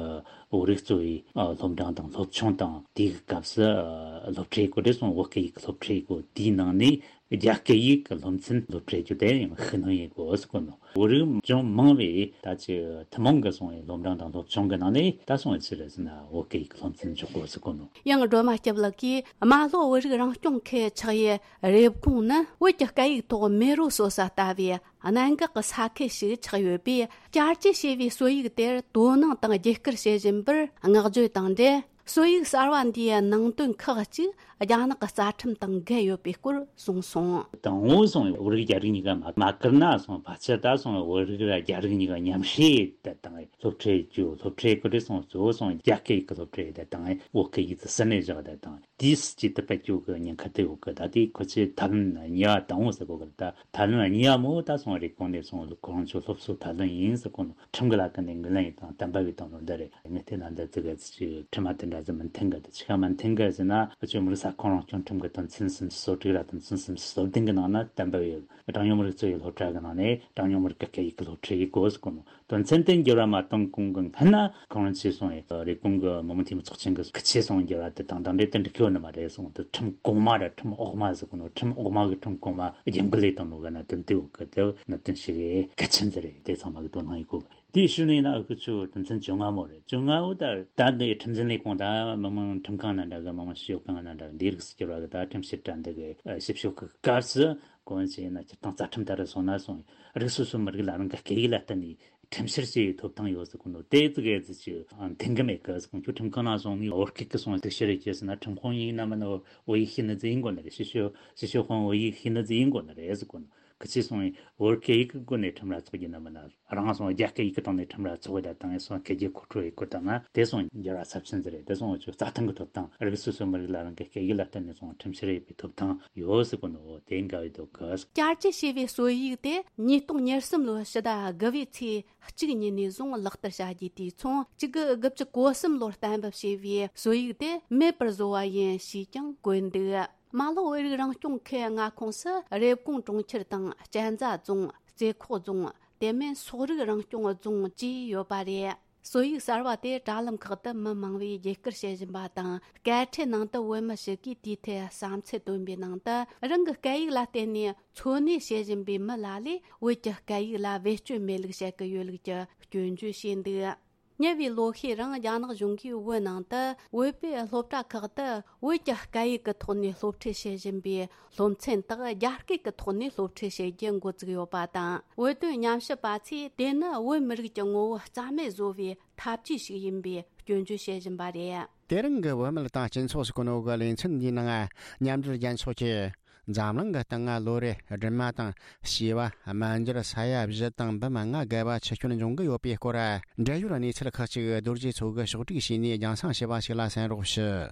བོད་རིགས་གཙོ་བའི་ཨ་སློབ་འབྲིང་དང་སློབ་ཆུང་དང་དེའི་སྐབས་སུ་ཨ་སློབ་ཁྲིད་དགོས་དེ་སོང་བོད་སྐད་ཡིག་གི་སློབ་ཁྲིད་དགོས། དེའི་ནང་ནས་རྒྱ་སྐད་ཡིག་གི་སློབ་ཚན་སློབ་ཁྲིད་རྒྱུ་དེ་ཡང་ཤུགས་སྣོན་ཡེད་དགོས་ཟེར་གོ་ནོ། བོད་རིགས་ཅུང་མང་བས་ད་ཅི་ཐུན་མོང་གི་སོང་བའི་སློབ་འབྲིང་དང་སློབ་ཆུང་གི་ནང་ནས་ད་སོང་བའི་ཕྱིར་ཟེར་ན་བོད་སྐད་ཡིག་གི་སློབ་ཚན་འཇོག་དགོས་ཟེར་གོ་ནོ། ཡང་སྒྲོལ་མ་སྐྱབས་ལགས་ཀྱིས། རྨ་ལྷོ་བོད་རིགས་རང་སྐྱོང་ཁུལ་ཆགས་ཡུལ་རེབ་གོང་ནི་བོད་ཀྱི་སྐད་ཡིག་ཐོག་མེ་རོ་གསོ་ས་ལྟ་བུའི་གནད་འགག་གི་ས་ཁུལ་ཞིག་ཆགས་ཡོད་པས། བསྐྱར་བཅོས་བྱས་པའི་སྲོལ་ཡིག་དེར་དོ་སྣང་དང་རྒྱབ་སྐྱོར་བྱེད་བཞིན་པར་བསྔགས་བརྗོད་དང་འབྲེལ། སྲོལ་ཡིག་གསར་བ་འདིའི་ནང་དོན་ཁག་ཅིག་རྒྱ་ནག་གི་རྩ་ཁྲིམས་དང་འགལ་ཡོད་པའི་སྐོར་གསུངས་སོང་། དང་པོ་སོང་བོད་རིགས་རྒྱ་རིགས་གཉིས་ཀ་མ་མ་བཀུར་ན་སོང་ཕལ་ཆེར་ད་སོང་བོད་རིགས་ར་རྒྱ་རིགས་གཉིས་ཀ་མཉམ་བསྲེས་དེ་དང་སློབ་ཁྲིད་རྒྱུ་སློབ་ཁྲིད་ཀི་རེ་སོང་གཙོ་བོ་སོང་རྒྱ་སྐད་ཡིག་གི་སློབ་ཁྲིད་དེ་དང་བོད་སྐད་ཡིག་ཏུ་ཟིན་ནས་བཞག་དེ་དང་དེས་ཅིག་ཏུ་སྤེལ་རྒྱུ་གི་ཉེན་ཁ་དེ་ཡོད་གི། ད་དེ་ཁོ་ཚོས་ཐབས་ལམ་གཉིས་པ་དང་པོ་ཟེར་གོ་གི། ད་ཐབས་ལམ་གཉིས་པ་མོ་ད་སོང་རེབ་གོང་ནས་སོང་ཁོ་རང་ཚོ་སློབ་གསོ་ཐབས་ལམ་ཡིན་ཟེར་གོ་ནོ། ཁྲིམས་ཀྱི་ལ་ཀ་ནས་ངོས་ལེན་ཡིན་དང་བསྟན་པ་བའི་དང་ལོ་འདི་རེད། ངས་བལྟས་ན་འདི་ཙི་ག་ཙི་ཅིག་ཁྲིམས་མ་དེ་འདྲ་ཟིག་མི་མཐུན་གི། དེ་ཆི་ག་མི་མཐུན་གི་ཟེར་ན་ཨ་ཅོ་མི་རིགས་ས་ཁོངས་རང་སྐྱོང་ཁྲིམས་ཀྱི་དོན་ཚན་སུམ་ཅུ་སོ་དྲུག་ར་དོན་ཚན་སུམ་ཅུ་སོ་བདུན་གི་ནང་ན་བསྟན་པ་བའི་གྲངས་ཉུང་མི་རིགས་གཙོ་བའི་སློབ་གྲྭ་གི་ནང་ནས་གྲངས་ཉུང་མི་རིགས་ཀྱི་སྐད་ཡིག་གི་སློབ་ཁྲིད་ཡིན་དགོས་ཟེར་གོ་ནོ། དོན་ཚན་དེ་འགྱུར་བ་མ་གཏོང་གོང་གི་སྔན་ན་ཁོང་རང་ཚོས་སོང་ཡོད་རེབ་གོང་གི་མི་དམངས་འཐུས་མི་ཚོགས་ཆེན་གི་ཁི་ཆོས་སོང་འགྱུར་བ་དེ་དང་དང་འབྲེལ་དུ་འགྲིག་གི་ཡོད་ནི་མ་རེད་གསུངས། དེ་ཁྲིམས་གོང་མ་ར་ཁྲིམས་འོག་མ་ཟེར་གོ་ནོ། ཁྲིམས་འོག་མ་གི་ཁྲིམས་གོང་མ་རྒྱབ་འགལ་ལས་བཏང་ནོ་ག་ན་དོན་དེ་འོག་གི་དེ་གནད་དོན་ཞིག་གལ་ཆེན་ཟེར་རེད། དེ་ཚང་མ་གི་དོ་སྣང་ཡིན་གོ། དེའི་ཤུལ་ནས་ཡིན་ན་ཨ་ཁུ་ཆོ་དོན་ཚན་བཅོ་ལྔ་མོ་རེད། བཅོ་ལྔ་བོ་ད་ད་འདི་ཁྲིམས་འཛིན་ལས་ཁུངས་ད་མི་དམངས་ཁྲིམས་ཁང་ན་འདྲ་གི་མི་དམངས་ཞིབ་དཔྱོད་ཁང་ན་འདྲ་གི་འདི་རིགས་སུ་གྱུར་བ་གི་ད་ཁྲིམས་ཞིབ་ཕྲ་འདི་གི་ཞིབ་དཔྱོད་གི་སྐབས་སུ་གོ་ཆེ་ན་སྤྱིར་བཏང་རྩ་ཁྲིམས་ལྟར་སོང་ན་སོང་རིགས་སོ་སོའི་མི་རིགས་ལ་རང་གི་སྐད་ཡིག་ལ་བརྟེན་ནས་ཁྲིམས་བཤེར་བྱེད་ཡའི་ཐོབ་ཐང་ཡོད་ཟེར་གོ་ནོ། དེ་ཙི་གེ་ཙི་ཅི་མཐུན་གི་མེད་གི་ཟེར་གོ། ཁྱོད་ཁྲིམས་ཁང་ན་སོང་ནས་བོད་སྐད་གི་སོང་གཏུག་བཤེར་རེ་བྱས་ཟེར་ན་ཁྲིམས་དཔོན་ཡིན་ན་མིན་ན་བོད་ཡིག་ཤེས་ནི་ཙི་ཡིན་དགོས་ནི་རེད། ཞིབ་དཔྱོད་ཞིབ་དཔྱོད་དཔོན་བོད་ཡིག་ཤེས་ནི་ཙི་ཡིན་དགོས་ནི་རེད་ཟེར་གོ་ནོ། ཁི་ཆོས་སོང་བོད་སྐད་ཡིག་གི་སྒོ་ནས་ཁྲིམས་ར་ཚོགས་རྒྱུ་ན་མིན་ན་རང་སོང་རྒྱ་སྐད་ཡིག་གི་སྟེང་ནས་ཁྲིམས་ར་ཚོགས་ཡ་དང་སོང་སྐད་ཡིག་མཁོ་སྤྲོད་ཡེད་དགོས་དང་ན་དེ་སོང་འགྱུར་བ་ཚབས་ཆེན་ཟེར་རེད། དེ་སོང་ཆོས་རྩ་ཁྲིམས་ཀྱི་ཐོབ་ཐང་རིགས་སོ་སོའི་མི་རིགས་ལ་རང་གི་སྐད་ཡིག་ལ་བརྟེན་ནས་སོང་ཁྲིམས་བཤེར་ཡེད་པའི་ཐོབ་ཐང་ཡོད་ཟེར་གོ་ནོ། དེ་འགལ་བའི་དོ་གི། བསྐྱར་བཅོས་བྱས་པའི་སྲོལ་ཡིག་དེ་ཉིས་སྟོང་ཉེར་གསུམ་ལོའི་ཕྱི་ཟླ་དགུ་པའི་ཚེས་གཅིག་ཉིན་ནས་བཟུང་ལག་བསྟར་བྱ་རྒྱུ་དེ་མཚུངས། གཅིག་དགུ་དགུ་བཅུ་གོ་གསུམ་ལོར་གཏན་འབེབས་བྱས་པའི་སྲོལ་ཡིག་དེ་མེད་པར་བཟོ་བ་ཡིན་ཞེས་ཀྱང་བཀོད་འདུག་རྨ་ལྷོ་བོད་རིགས་རང་སྐྱོང་ཁུལ་མངའ་ཁོངས་སུ་རེབ་གོང་གྲོང་ཁྱེར་དང་གཅན་ཚ་རྫོང་། རྩེ་ཁོག་རྫོང་། དེ་མིན་སོག་རིགས་རང་སྐྱོང་རྫོང་བཅས་ཡོད་པ་རེད། སྲོལ་ཡིག་གསར་བ་དེ་དྲ་ལམ་ཁག་ཏུ་མི་མང་བས་རྒྱས་བསྐུར་བྱེད་བཞིན་པ་དང་། སྐད་འཕྲིན་ནང་དུ་བོད་མི་ཞིག་གིས་དེའི་ཐད་བསམ་ཚུལ་བཏོན་པའི་ནང་དུ། རང་གི་སྐད་ཡིག་ལ་བརྟེན་ནས་འཚོ་གནས་བྱེད་བཞིན་པའི་མི་ལ་ལས་བོད་ཀྱི་སྐད་ཡིག་ལ་བེད་སྤྱོད་མེད་ལུགས་བཤད་ཀྱི་ཡོད་ལུགས་ཀྱི་སྐྱོན་བརྗོད་བྱས་འདུག་ཉེ་བའི་ལོ་ཤས་རིང་རྒྱ་ནག་གཞུང་གིས་བོད་ནང་དུ་བོད་པའི་སློབ་གྲྭ་ཁག་ཏུ་བོད་ཀྱི་སྐད་ཡིག་གི་ཐོག་ནས་སློབ་ཁྲིད་བྱེད་བཞིན་པའི་སློབ་ཚན་དག་རྒྱ་སྐད་ཀྱི་ཐོག་ནས་སློབ་ཁྲིད་བྱེད་རྒྱུ་འགོ་བཙུགས་ཡོད་པ་དང་། བོད་དོན་ཉམས་ཞིབ་པ་ཚོས་དེ་ནི་བོད་མི་རིགས་ཀྱི་ངོ་བོ་རྩ་མེད་བཟོ་བའི་ཐབས་ཇུས་ཤིག་ཡིན་པའི་སྐྱོན་བརྗོད་བྱེད་བཞིན་པ་རེད། དེ་རིང་གི་བོད་མི་དང་སྤྱི་ཚོགས་སུ་གོ་ནོ་གི་ལེ་ཚན་འདིའི་ནང་། མཉམ་འབྲེལ་རྒྱལ་ཚོགས་ཀྱིས་འཛམ་གླིང་གི་སྟེང་ང་ལོ་རེ་སྦྲུམ་མ་དང་བྱིས་པ་དམར་འབྱར་ས་ཡ་བཞི་དང་འབུམ་ལྔ་བརྒལ་བ་འཆི་སྐྱོན་འབྱུང་གི་ཡོད་པའི་སྐོར། འབྲེལ་ཡོད་གནས་ཚུལ་ཁག་ཅིག་རྡོ་རྗེ་མཚོ་གིས་ཕྱོགས་སྒྲིག་བྱས་ནས་རྒྱང་སྲིང་བྱས་པ་ཞིག་ལ་གསན་རོགས་ཞུ།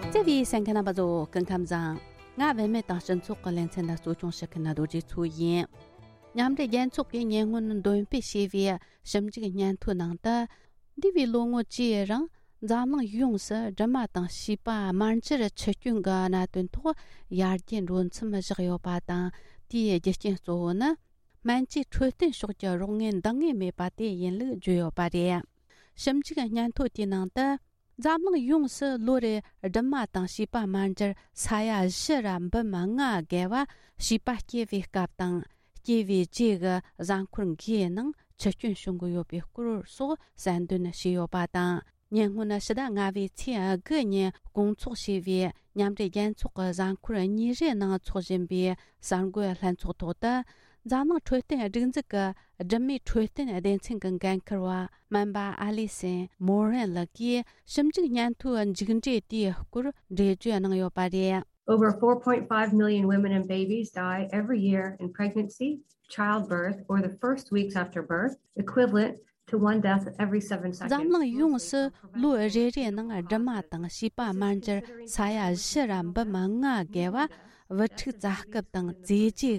བརྩེ་བའི་གསན་མཁན་རྣམ་པ་ཚོ་སྐུ་ཁམས་བཟང་། ང་བུད་མེད་དང་སྤྱི་ཚོགས་ཀྱི་ལེ་ཚན་ལ་གཙོ་སྐྱོང་བྱེད་མཁན་རྡོ་རྗེ་མཚོ་ཡིན། མཉམ་འབྲེལ་རྒྱལ་ཚོགས་ཀྱིས་ཉེ་སྔོན་འདོན་སྤེལ་བྱས་པའི་ཞིབ་འཇུག་སྙན་ཐོའི་ནང་དུ། འདས་པའི་ལོ་ངོ་བཅུའི་རིང་འཛམ་གླིང་ཡོངས་སུ་སྦྲུམ་མ་དང་བྱིས་པ་དམར་འབྱར་འཆི་སྐྱོན་གྱི་གནད་དོན་ཐོག་ཡར་རྒྱས་འགྲོ་མཚམས་བཞག་ཡོད་པ་དང་། དེའི་རྒྱུ་རྐྱེན་གཙོ་བོ་ནི། སྨན་བཅོས་འཕྲོད་བསྟེན་ཕྱོགས་ཀྱི་རོགས་དངུལ་འདང་ངེས་མེད་པ་དེ་ཡིན་ལུགས་བརྗོད་ཡོད་པ་རེད། ཞིབ་འཇུག་སྙན་ཐོ་དེའི་ནང་དུ། འཛམ་གླིང་ཡོངས་སུ་ལོ་རེར་སྦྲུམ་མ་དང་བྱིས་པ་དམར་འབྱར་ས་ཡ་བཞི་ར་འབུམ་ལྔ་བརྒལ་བ་བྱིས་པ་སྐྱེ་བའི་སྐབས་དང་། སྐྱེ་བའི་རྗེས་ཀྱི་གཟའ་འཁོར་འགའི་ནང་འཆི་སྐྱོན་བྱུང་གི་ཡོད་པའི་སྐོར་སོགས་གསལ་འདོན་བྱས་ཡོད་པ་དང་། ཉེ་སྔོན་ཕྱི་ཟླ་ལྔ་པའི་ཚེས་དགུ་ཉིན་སྐོང་ཚོགས་བྱས་པའི་མཉམ་འབྲེལ་རྒྱལ་ཚོགས་ཀྱི་གཟའ་འཁོར་གཉིས་རེའི་ནང་འཚོགས་བཞིན་པའི་གསར་འགོད་ལྷན་ཚོགས་ཐོག་ཏུ། འཛམ་གླིང་འཕྲོད་བསྟེན་སྒྲིག་འཛུགས་ཀྱི་སྦྲུམ་མའི་འཕྲོད་བསྟེན་སྡེ་ཚན་གྱི་འགན་འཁུར་བ་སྨན་པ་ཨ་ལི་སན་མོ་རན་ལགས་ཀྱིས་ཞིབ་འཇུག་སྙན་ཐོའི་མཇུག་འབྲས་དེའི་སྐོར་འགྲེལ་བརྗོད་གནང་ཡོད་པ་རེད། Over four point five million women and babies die every year in pregnancy, childbirth, or the first weeks after birth, equivalent to one death every seven seconds. འཛམ་གླིང་ཡོངས་སུ་ལོ་རེ་རེའི་ནང་སྦྲུམ་མ་དང་བྱིས་པ་དམར་འབྱར་ས་ཡ་བཞི་ར་འབུམ་ལྔ་བརྒལ་བ་བུ་ཕྲུག་བཙའ་སྐབས་དང་བཙས་རྗེས་ཀྱི་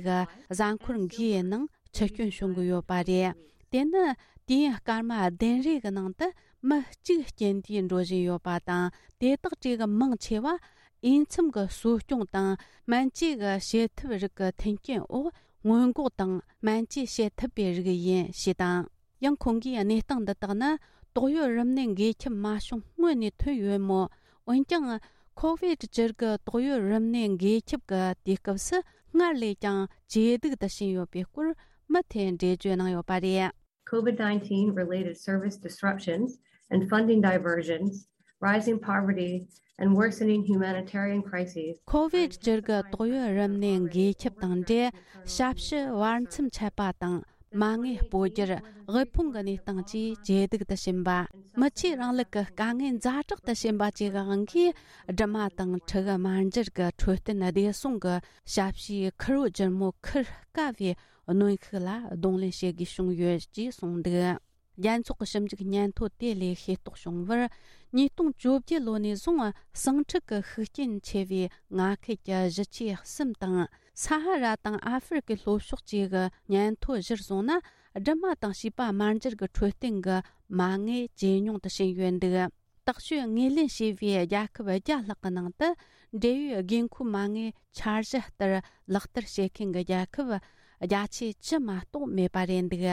གཟའ་འཁོར་འགའི་ནང་འཆི་སྐྱོན་བྱུང་གི་ཡོད་པ་རེད། དེ་ནི་དུས་ཡུན་སྐར་མ་བདུན་རེ་གི་ནང་དུ་མི་གཅིག་རྐྱེན་དུས་འགྲོ་བཞིན་ཡོད་པ་དང་། དེ་དག་གྲས་ཀྱི་མང་ཆེ་བ་འོས་འཚམ་གྱི་གསོ་སྐྱོང་དང་སྨན་བཅོས་ཀྱི་བྱེད་ཐབས་རིགས་ཀྱི་མཐུན་རྐྱེན་འོག་སྔོན་འགོག་དང་སྨན་བཅོས་བྱེད་ཐུབ་པའི་རིགས་ཡིན་ཞེས་དང་། ཡང་ཁོང་གིས་གནས་སྟངས་འདི་དག་ནི་ཏོག་དབྱིབས་རིམས་ནད་འགོས་ཁྱབ་མ་བྱུང་སྔོན་ནས་ཐོན་ཡོད་མོད། འོན་ཀྱང་ཁོ་བིད་བཅུ་དགུ་ཏོག་དབྱིབས་རིམས་ནད་འགོས་ཁྱབ་ཀྱི་དུས་སྐབས་སུ་སྔར་ལས་ཀྱང་ཇེ་སྡུག་ཏུ་ཕྱིན་ཡོད་པའི་སྐོར་མུ་མཐུད་འགྲེལ་བརྗོད་གནང་ཡོད་པ་རེད། COVID nineteen related service disruptions and funding diversions, rising poverty, and worsening humanitarian crises. ཁོ་བིད་བཅུ་དགུ་ཏོག་དབྱིབས་རིམས་ནད་འགོས་ཁྱབ་དང་འབྲེལ། ཞབས་ཞུ་བར་མཚམས་ཆད་པ་དང་། མ་དངུལ་སྤོ་སྒྱུར། དབུལ་ཕོངས་ཀྱི་གནས་སྟངས་བཅས་ཇེ་སྡུག་ཏུ་ཕྱིན་པ། མི་ཆོས་རིང་ལུགས་ཀྱི་དཀའ་ངལ་ཛ་དྲག་ཏུ་ཕྱིན་པ་བཅས་ཀྱི་དབང་གིས། སྦྲུམ་མ་དང་ཕྲུ་གུ་དམར་འབྱར་གྱི་འཕྲོད་བསྟེན་བདེ་སྲུང་གི་ཞབས་ཞུའི་ཁེར་རོ་ལྗིད་མོ་འཁུར་དཀའ་བའི་གནོན་ཤུགས་ལ་གདོང་ལེན་བྱེད་དགོས་བྱུང་ཡོད་ཅེས་གསུངས་འདུག་རྒྱལ་ཚོགས་ཀྱི་ཞིབ་འཇུག་སྙན་ཐོ་དེ་ལས་ཤེས་རྟོགས་བྱུང་བར། ཉིས་སྟོང་བཅོ་བརྒྱད་ལོ་ནས་བཟུང་ཟིང་འཁྲུག་གི་ཤུགས་རྐྱེན་ཆེ་བའི་མངའ་ཁུལ་གྱི་གཞིས་ཆགས་གསུམ་དང་། ས་ཧ་ར་དང་ཨ་ཧྥེ་རི་ཁའི་ལྷོ་ཕྱོགས་བཅས་ཀྱི་སྙན་ཐོ་གཞིར་བཟུང་ན། སྦྲུམ་མ་དང་བྱིས་པ་དམར་འབྱར་གྱི་འཕྲོད་བསྟེན་གྱི་མ་དངུལ་ཇེ་ཉུང་དུ་ཕྱིན་ཡོད་འདུག་དག་ཤོས་ངོས་ལེན་བྱས་པའི་རྒྱལ་ཁབ་བརྒྱ་ལྷག་གི་ནང་དུ། འབྲེལ་ཡོད་དགོས་མཁོའི་མ་དངུལ་འཆར་གཞི་ལྟར་ལག་བསྟར་བྱེད་མཁན་གྱི་རྒྱལ་ཁབ་བརྒྱ་ཆའི་བཅུ་མ་གཏོགས་མེད་པ་རེད་འདུག་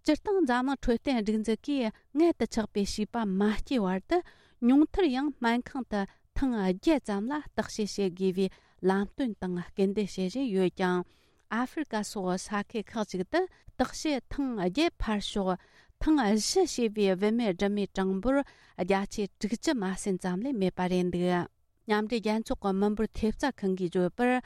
སྤྱིར་བཏང་འཛམ་གླིང་འཕྲོད་བསྟེན་སྒྲིག་འཛུགས་ཀྱིས་མངལ་དུ་ཆགས་པའི་བྱིས་པ་མ་སྐྱེས་བར་དུ་ཉུང་མཐར་ཡང་སྨན་ཁང་དུ་ཐེངས་བརྒྱད་ཙམ་ལ་བརྟག་དཔྱད་བྱེད་དགོས་པའི་ལམ་སྟོན་དང་སྐུལ་འདེད་བྱེད་བཞིན་ཡོད་ཀྱང་། ཨ་ཧྥེ་རི་ཀ་སོགས་ས་ཁུལ་ཁག་ཅིག་ཏུ་བརྟག་དཔྱད་ཐེངས་བརྒྱད་ཕར་ཞོག་ཐེངས་བཞི་བྱས་པའི་བུད་མེད་སྦྲུམ་མའི་གྲངས་འབོར་བརྒྱ་ཆའི་དྲུག་ཅུ་མ་ཟིན་ཙམ་ལས་མེད་པ་རེད་འདུག་མཉམ་འབྲེལ་རྒྱལ་ཚོགས་ཀྱི་མི་འབོར་ཐེབས་རྩ་ཁང་གིས་བརྗོད་པར།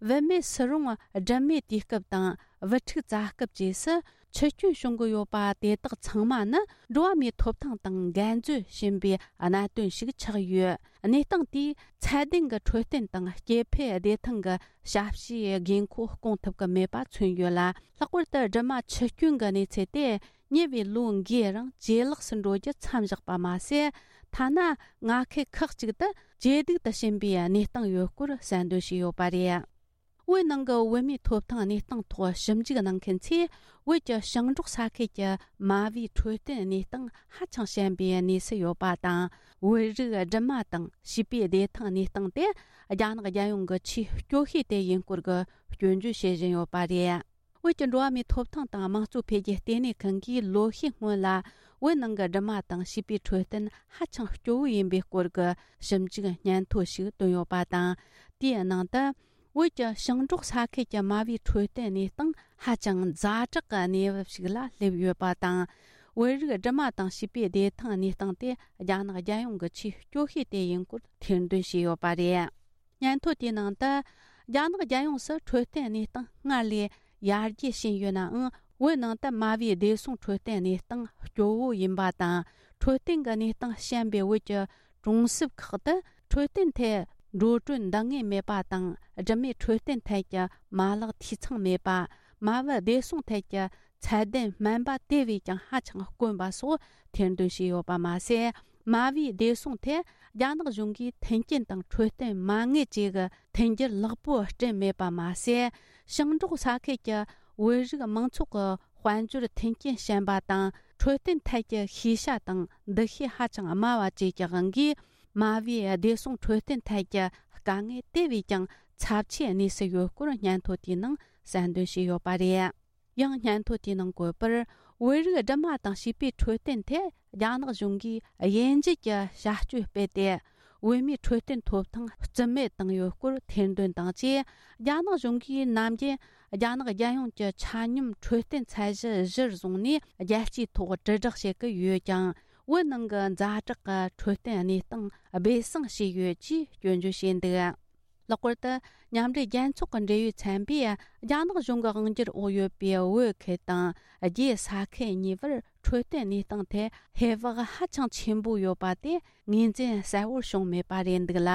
བུད་མེད་སུ་རུང་སྦྲུམ་མའི་དུས་སྐབས་དང་བུ་ཕྲུག་བཙའ་སྐབས་བཅས་སུ་འཆི་སྐྱོན་བྱུང་གི་ཡོད་པ་དེ་དག་ཚང་མ་ནི་འགྲོ་བ་མིའི་ཐོབ་ཐང་དང་འགལ་འཛོལ་ཕྱིན་པའི་གནད་དོན་ཞིག་ཆགས་ཡོད། གནས་སྟངས་དེས་ཚད་ལྡན་གྱི་འཕྲོད་བསྟེན་དང་སྐྱེ་འཕེལ་བདེ་ཐང་གི་ཞབས་ཞུའི་དགོས་མཁོ་སྐོང་ཐུབ་ཀྱི་མེད་པ་མཚོན་ཡོད་ལ། ལྷག་པར་དུ་སྦྲུམ་མ་འཆི་སྐྱོན་གྱི་གནས་ཚུལ་དེ། ཉེ་བའི་ལོ་འགའི་རིང་ཇེ་ལེགས་སུ་འགྲོ་རྒྱུ་མཚམས་བཞག་པ་མ་ཟད། ཐ་ན་མངའ་ཁུལ་ཁག་ཅིག་ཏུ་ཇེ་སྡུག་ཏུ་ཕྱིན་པའི་གནས་སྟངས་ཡོད་སྐོར་གསལ་འདོན་བྱས་ཡོད་པ་རེད། བོད་ནང་གི་བོད་མིའི་ཐོབ་ཐང་གནས་སྟངས་ཐོག་ཞིབ་འཇུག་གནང་མཁན་ཚོས། བོད་ཀྱི་ཞིང་འབྲོག་ས་ཁུལ་གྱི་མ་བུའི་འཕྲོད་བསྟེན་གནས་སྟངས་ཧ་ཅང་ཞན་པའི་གནས་སུ་ཡོད་པ་དང་། བོད་རིགས་སྦྲུམ་མ་དང་བྱིས་པའི་བདེ་ཐང་གནས་སྟངས་དེ་རྒྱ་ནག་རྒྱལ་ཡོངས་ཀྱི་ཆེས་སྐྱོ་ཤོས་དེ་ཡིན་སྐོར་གྱི་སྐྱོན་བརྗོད་བྱེད་བཞིན་ཡོད་པ་རེད། བོད་ཀྱི་འགྲོ་བ་མིའི་ཐོབ་ཐང་དང་དམངས་གཙོ་འཕེལ་རྒྱས་ལྟེ་གནས་ཁང་གིས་ལོ་ཤས་སྔོན་ལ། བོད་ནང་གི་སྦྲུམ་མ་དང་བྱིས་པའི་འཕྲོད་བསྟེན་ཧ་ཅང་སྐྱོ་བོ་ཡིན་པའི་སྐོར་གྱི་ཞིབ་འཇུག་སྙན་ཐོ་ཞིག་བཏོན་ཡོད་པ་དང་། དེའི་ནང་དུ། བོད་ཀྱི་ཞིང་འབྲོག་ས་ཁུལ་གྱི་མ་བུའི་འཕྲོད་བསྟེན་གནས་སྟངས་ཧ་ཅང་ཛ་དྲག་གི་གནས་བབ་ཞིག་ལ་སླེབས་ཡོད་པ་དང་། བོད་རིགས་སྦྲུམ་མ་དང་བྱིས་པའི་བདེ་ཐང་གནས་སྟངས་དེ་རྒྱ་ནག་རྒྱལ་ཡོངས་ཀྱི་ཆེས་སྐྱོ་ཤོས་དེ་ཡིན་སྐོར་ཐེར་འདོན་བྱས་ཡོད་པ་རེད། སྙན་ཐོ་དེའི་ནང་དུ། རྒྱ་ནག་རྒྱལ་ཡོངས་སུ་འཕྲོད་བསྟེན་གནས་སྟངས་སྔར་ལས་ཡར་རྒྱས་ཕྱིན་ཡོད་ནའང་། བོད་ནང་དུ་མ་བུའི་བདེ་སྲུང་འཕྲོད་བསྟེན་གནས་སྟངས་སྐྱོ་བོ་ཡིན་པ་དང་། འཕྲོད་བསྟེན་གྱི་གནས་སྟངས་ཞན་པའི་བོད་ཀྱི་གྲོང་གསེབ་ཁག་ཏུ། འཕྲོད་བསྟེན་ཐད་འགྲོ་གྲོན་འདང་ངེས་མེད་པ་དང་། སྦྲུམ་མའི་འཕྲོད་བསྟེན་ཐད་ཀྱི་མ་ལག་འཐུས་ཚང་མེད་པ། མ་བུ་བདེ་སྲུང་ཐད་ཀྱི་ཚད་ལྡན་སྨན་པ་དེ་བས་ཀྱང་ཧ་ཅང་དཀོན་པ་སོགས་ཐེར་འདོན་བྱས་ཡོད་པ་མ་ཟད། མ་བུའི་བདེ་སྲུང་ཐད་རྒྱ་ནག་གཞུང་གིས་མཐུན་རྐྱེན་དང་འཕྲོད་བསྟེན་མ་དངུལ་བཅས་ཀྱི་མཐུན་འགྱུར་ལེགས་པོ་བསྐྲུན་མེད་པ་མ་ཟད། ཞིང་འབྲོག་ས་ཁུལ་གྱི་བོད་རིགས་མང་ཚོགས་ཀྱི་དཔལ་འབྱོར་མཐུན་རྐྱེན་ཞན་པ་དང་། འཕྲོད་བསྟེན་ཐད་ཀྱི་ཤེས་བྱ་དང་འདུ་ཤེས་ཧ་ཅང་དམའ་བ་བཅས་ཀྱི་དབང་གིས། མ་བུའི་བདེ་སྲུང་འཕྲོད་བསྟེན་ཐད་ཀྱི་དཀའ་ངལ་དེ་བས་ཀྱང་ཚབས་ཆེའི་གནས་སུ་ཡོད་སྐོར་སྙན་ཐོ་དེའི་ནང་གསལ་འདོན་བྱས་ཡོད་པ་རེད། ཡང་སྙན་ཐོ་དེའི་ནང་བཀོད་པར། བོད་རིགས་སྦྲུམ་མ་དང་བྱིས་པའི་འཕྲོད་བསྟེན་ཐད་རྒྱ་ནག་གཞུང་གིས་དབྱེ་འབྱེད་ཀྱི་བྱ་སྤྱོད་སྤེལ་ཏེ། བོད་མིའི་འཕྲོད་བསྟེན་ཐོབ་ཐང་རྩིས་མེད་བཏང་ཡོད་སྐོར་ཐེར་འདོན་དང་བཅས། རྒྱ་ནག་གཞུང་གིས་ནམ་རྒྱུན་རྒྱ་ནག་རྒྱལ་ཡོངས་ཀྱི་ཆ་སྙོམས་འཕྲོད་བསྟེན་ཚད་གཞི་གཞིར་བཟུང་ནས་རྒྱལ་སྤྱིའི་ཐོག་དྲིལ་བསྒྲགས་བྱེད་ཀྱི་ཡོད་ཀྱང་། བོད་ནང་གི་ཛ་དྲག་གི་འཕྲོད་བསྟེན་གནས་སྟངས་སྦས་གསང་བྱས་ཡོད་ཅེས་སྐྱོན་བརྗོད་བྱས་འདུག། ལྷག་པར་དུ། མཉམ་འབྲེལ་རྒྱལ་ཚོགས་ཀྱི་འབྲེལ་ཡོད་ཚན་པས། རྒྱ་ནག་གཞུང་གི་དབང་སྒྱུར་འོག་ཡོད་པའི་བོད་ཁུལ་དང་། རྒྱའི་ས་ཁུལ་གཉིས་བར་འཕྲོད་བསྟེན་གནས་སྟངས་ཐད་ཧེ་བག་ཧ་ཅང་ཆེན་པོ་ཡོད་པ་དེ་ངོས་འཛིན་གསལ་བོར་བྱུང་མེད་པ་རེད་འདུག་ལ།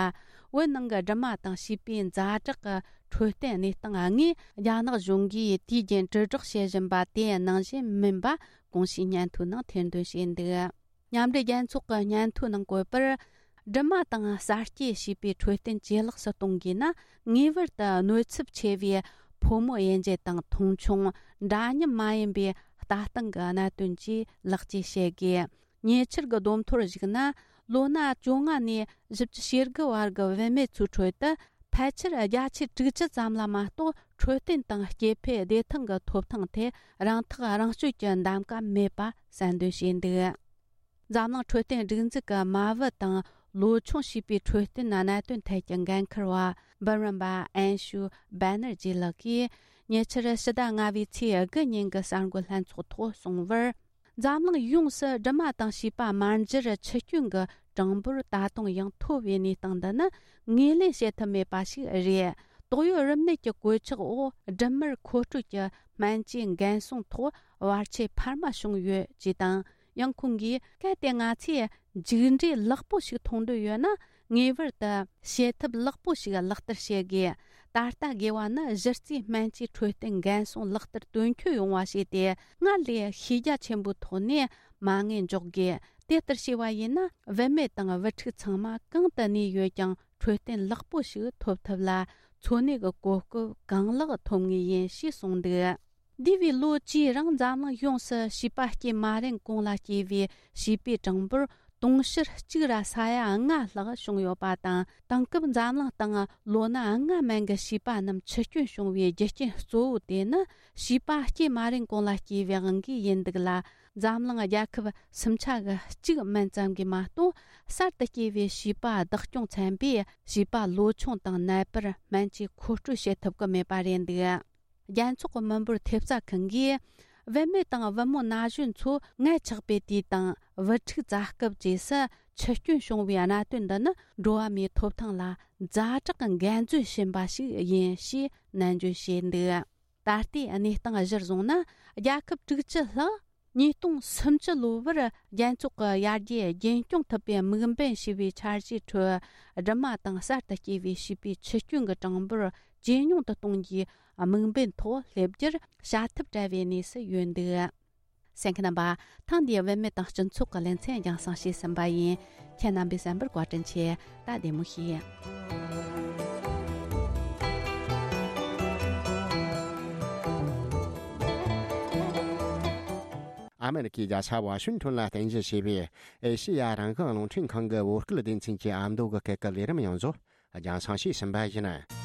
བོད་ནང་གི་སྦྲུམ་མ་དང་བྱིས་པའི་ཛ་དྲག་གི་འཕྲོད་བསྟེན་གནས་སྟངས་དངོས་རྒྱ་ནག་གཞུང་གིས་དུས་རྒྱུན་དྲིལ་བསྒྲགས་བྱེད་བཞིན་པ་དེ་ནང་བཞིན་མིན་པ་གོང་ཞུས་སྙན་ཐོའི་ནང་ཐེར་འདོན་བྱས་འདུག། མཉམ་འབྲེལ་རྒྱལ་ཚོགས་ཀྱི་སྙན་ཐོའི་ནང་བཀོད་པར། སྦྲུམ་མ་དང་གསར་སྐྱེས་བྱིས་པའི་འཕྲོད་བསྟེན་ཇེ་ལེགས་སུ་གཏོང་དགོས་ན། ངེས་པར་དུ་གནོད་ཚབས་ཆེ་བའི་ཕོ་མོ་དབྱེ་འབྱེད་དང་མཐོང་ཆུང་། འདྲ་མཉམ་མ་ཡིན་པའི་ལྟ་སྟངས་ཀྱི་གནད་དོན་བཅས་ལེགས་བཅོས་བྱེད་དགོས། ཉེ་ཆར་གྱི་བསྡོམས་ཐོར་གཞིགས་ན། ལོ་ན་བཅོ་ལྔ་ནས་བཞི་བཅུ་ཞེ་དགུ་བར་གྱི་བུད་མེད་ཚོའི་ཁྲོད་དུ། ཕལ་ཆེར་བརྒྱ་ཆ་དྲུག་ཅུ་ཙམ་ལ་མ་གཏོགས། འཕྲོད་བསྟེན་དང་སྐྱེ་འཕེལ་བདེ་ཐང་གི་ཐོབ་ཐང་ཐད་རང་ཐག་རང་གཅོད་ཀྱི་འདེམས་ཀ་མེད་པ་གསལ་འདོན་བྱས་འདུག། འཛམ་གླིང་འཕྲོད་བསྟེན་སྒྲིག་འཛུགས་ཀྱི་མ་བུ་དང་ལོ་ཆུང་བྱིས་པའི་འཕྲོད་བསྟེན་གནད་དོན་ཐད་ཀྱི་འགན་འཁུར་བ་འབུམ་རམས་པ་ཨན་ཤུ་བྷ་ནར་ཇི་ལགས་ཀྱིས། ཉེ་ཆར་ཕྱི་ཟླ་ལྔ་པའི་ཚེས་དགུ་ཉིན་གྱི་གསར་འགོད་ལྷན་ཚོགས་ཐོག་གསུངས་པར། འཛམ་གླིང་ཡོངས་སུ་སྦྲུམ་མ་དང་བྱིས་པ་དམར་འབྱར་འཆི་སྐྱོན་གྱི་གྲངས་འབོར་ད་དུང་ཡང་མཐོ་བའི་གནས་སྟངས་འདི་ནི་ངོས་ལེན་བྱེད་ཐུབ་མེད་པ་ཞིག་རེད། དོགས་ཡོད་རིམས་ནད་ཀྱི་གོད་ཆག་འོག་སྦྲུམ་མར་མཁོ་སྤྲོད་ཀྱི་སྨན་བཅོས་འགན་སྲུང་ཐོག་བར་ཆད་འཕར་མ་བྱུང་ཡོད་ཅེས་དང་། ཡང་ཁོང་གིས། གལ་ཏེ་ང་ཚོས་མཇུག་འབྲས་ལེགས་པོ་ཞིག་མཐོང་འདོད་ཡོད་ན། ངེས་པར་དུ་བྱེད་ཐབས་ལེགས་པོ་ཞིག་ལག་བསྟར་བྱེད་དགོས། ད་ལྟ་དགོས་པ་ནི་གཞི་རྩའི་སྨན་བཅོས་འཕྲོད་བསྟེན་འགན་སྲུང་ལག་བསྟར་དོན་འཁྱོལ་ཡོང་བ་བྱས་ཏེ། སྔར་ལས་ཤེས་རྒྱ་ཆེན་པོའི་ཐོག་ནས་མ་དངུལ་འཇོག་དགོས། དེ་ལྟར་བྱས་པ་ཡིན་ན། བུད་མེད་དང་བུ་ཕྲུག་ཚང་མ་གང་དུ་གནས་ཡོད་ཀྱང་། འཕྲོད་བསྟེན་ལེགས་པོ་ཞིག་ཐོབ་ཐབས་ལ། འཚོ་གནས་ཀྱི་གོ་སྐབས་གང་ལེགས་ཐོབ་ངེས་ཡིན་ཞེས་གསུངས་འདུག། འདས་པའི་ལོ་བཅུའི་རིང་འཛམ་གླིང་ཡོངས་སུ་བྱིས་པ་སྐྱེས་མ་རན་གོང་ལ་སྐྱེས་པའི་བྱིས་པའི་གྲངས་འབོར་དུང་ཕྱུར་གཅིག་ར་ས་ཡ་ལྔ་ལྷག་བྱུང་ཡོད་པ་དང་། དེང་སྐབས་འཛམ་གླིང་སྟེང་ལོ་ན་ལྔ་མན་གྱི་བྱིས་པ་རྣམས་འཆི་སྐྱོན་བྱུང་བའི་རྒྱུ་རྐྱེན་གཙོ་བོ་དེ་ནི། བྱིས་པ་སྐྱེས་མ་རན་གོང་ལ་སྐྱེས་པའི་དབང་གིས་ཡིན་འདུག་ལ། འཛམ་གླིང་རྒྱལ་ཁབ་སུམ་ཆ་གི་གཅིག་མན་ཙམ་གྱིས་མ་གཏོགས། གསར་དུ་སྐྱེས་པའི་བྱིས་པ་བདག་སྐྱོང་ཚན་པས་བྱིས་པ་ལོ་ཆུང་དང་ནད་པར་སྨན་བཅོས་མཁོ་སྤྲོད་བྱེད་ཐུབ་ཀྱི་མེད་པ་རེད་འདུག། རྒྱལ་ཚོགས་ཀྱི་མི་འབོར་ཐེབས་རྩ་ཁང་གིས། བུད་མེད་དང་བུ་མོ་ན་གཞོན་ཚོ་མངལ་ཆགས་པའི་དུས་དང་བུ་ཕྲུག་བཙའ་སྐབས་བཅས་སུ་འཆི་སྐྱོན་བྱུང་བའི་གནད་དོན་འདི་ནི། འགྲོ་བ་མིའི་ཐོབ་ཐང་ལ་ཛ་དྲག་གི་འགན་འཛིན་བྱིན་པ་ཞིག་ཡིན་ཞེས་ནན་བརྗོད་བྱས་འདུག། ད་ལྟའི་གནས་སྟངས་གཞིར་བཟུང་ན། རྒྱལ་ཁབ་དྲུག་ཅུ་ལྷག་ཉིས་སྟོང་སུམ་ཅུ་ལོ་བར་རྒྱལ་ཚོགས་ཀྱི་ཡར་རྒྱས་རྒྱུན་སྐྱོང་ཐུབ་པའི་དམིགས་འབེན་ཞེས་པའི་འཆར་གཞིའི་ཁྲོད། སྦྲུམ་མ་དང་གསར་དུ་སྐྱེས་པའི་བྱིས་པའི་འཆི་སྐྱོན་གྱི་གྲངས་འབོར་ཇེ་ཉུང་དུ་གཏོང་རྒྱུའི་དམིགས་འབེན་ཐོག་སླེབས་རྒྱུར་བྱ་ཐབས་བྲལ་བའི་གནས་སུ་ཡོད་འདུག། གསན་མཁན་རྣམ་པ། ཐེངས་འདིའི་བུད་མེད་དང་སྤྱི་ཚོགས་ཀྱི་ལེ་ཚན་རྒྱང་སྲིང་བྱས་ཟིན་པ་ཡིན། ཁྱེད་རྣམ་པས་གསན་པར་བཀའ་དྲིན་ཆེ། ད་བདེ་མོ་བྱོས། ཨ་མེ་རི་ཁའི་རྒྱལ་ས་ཝ་ཤིང་ཊོན་ལ་རྟེན་གཞི་བྱས་པའི་ཨེ་ཤེ་ཡ་རང་དབང་རླུང་འཕྲིན་ཁང་གི་བོད་སྐད་སྡེ་ཚན་གྱི་ཨ་མདོ་གི་སྐད་ཀྱི་ལས་རིམ་ཡོངས་རྫོགས་རྒྱང་སྲིང་བྱས་ཟིན་པ་ཡིན།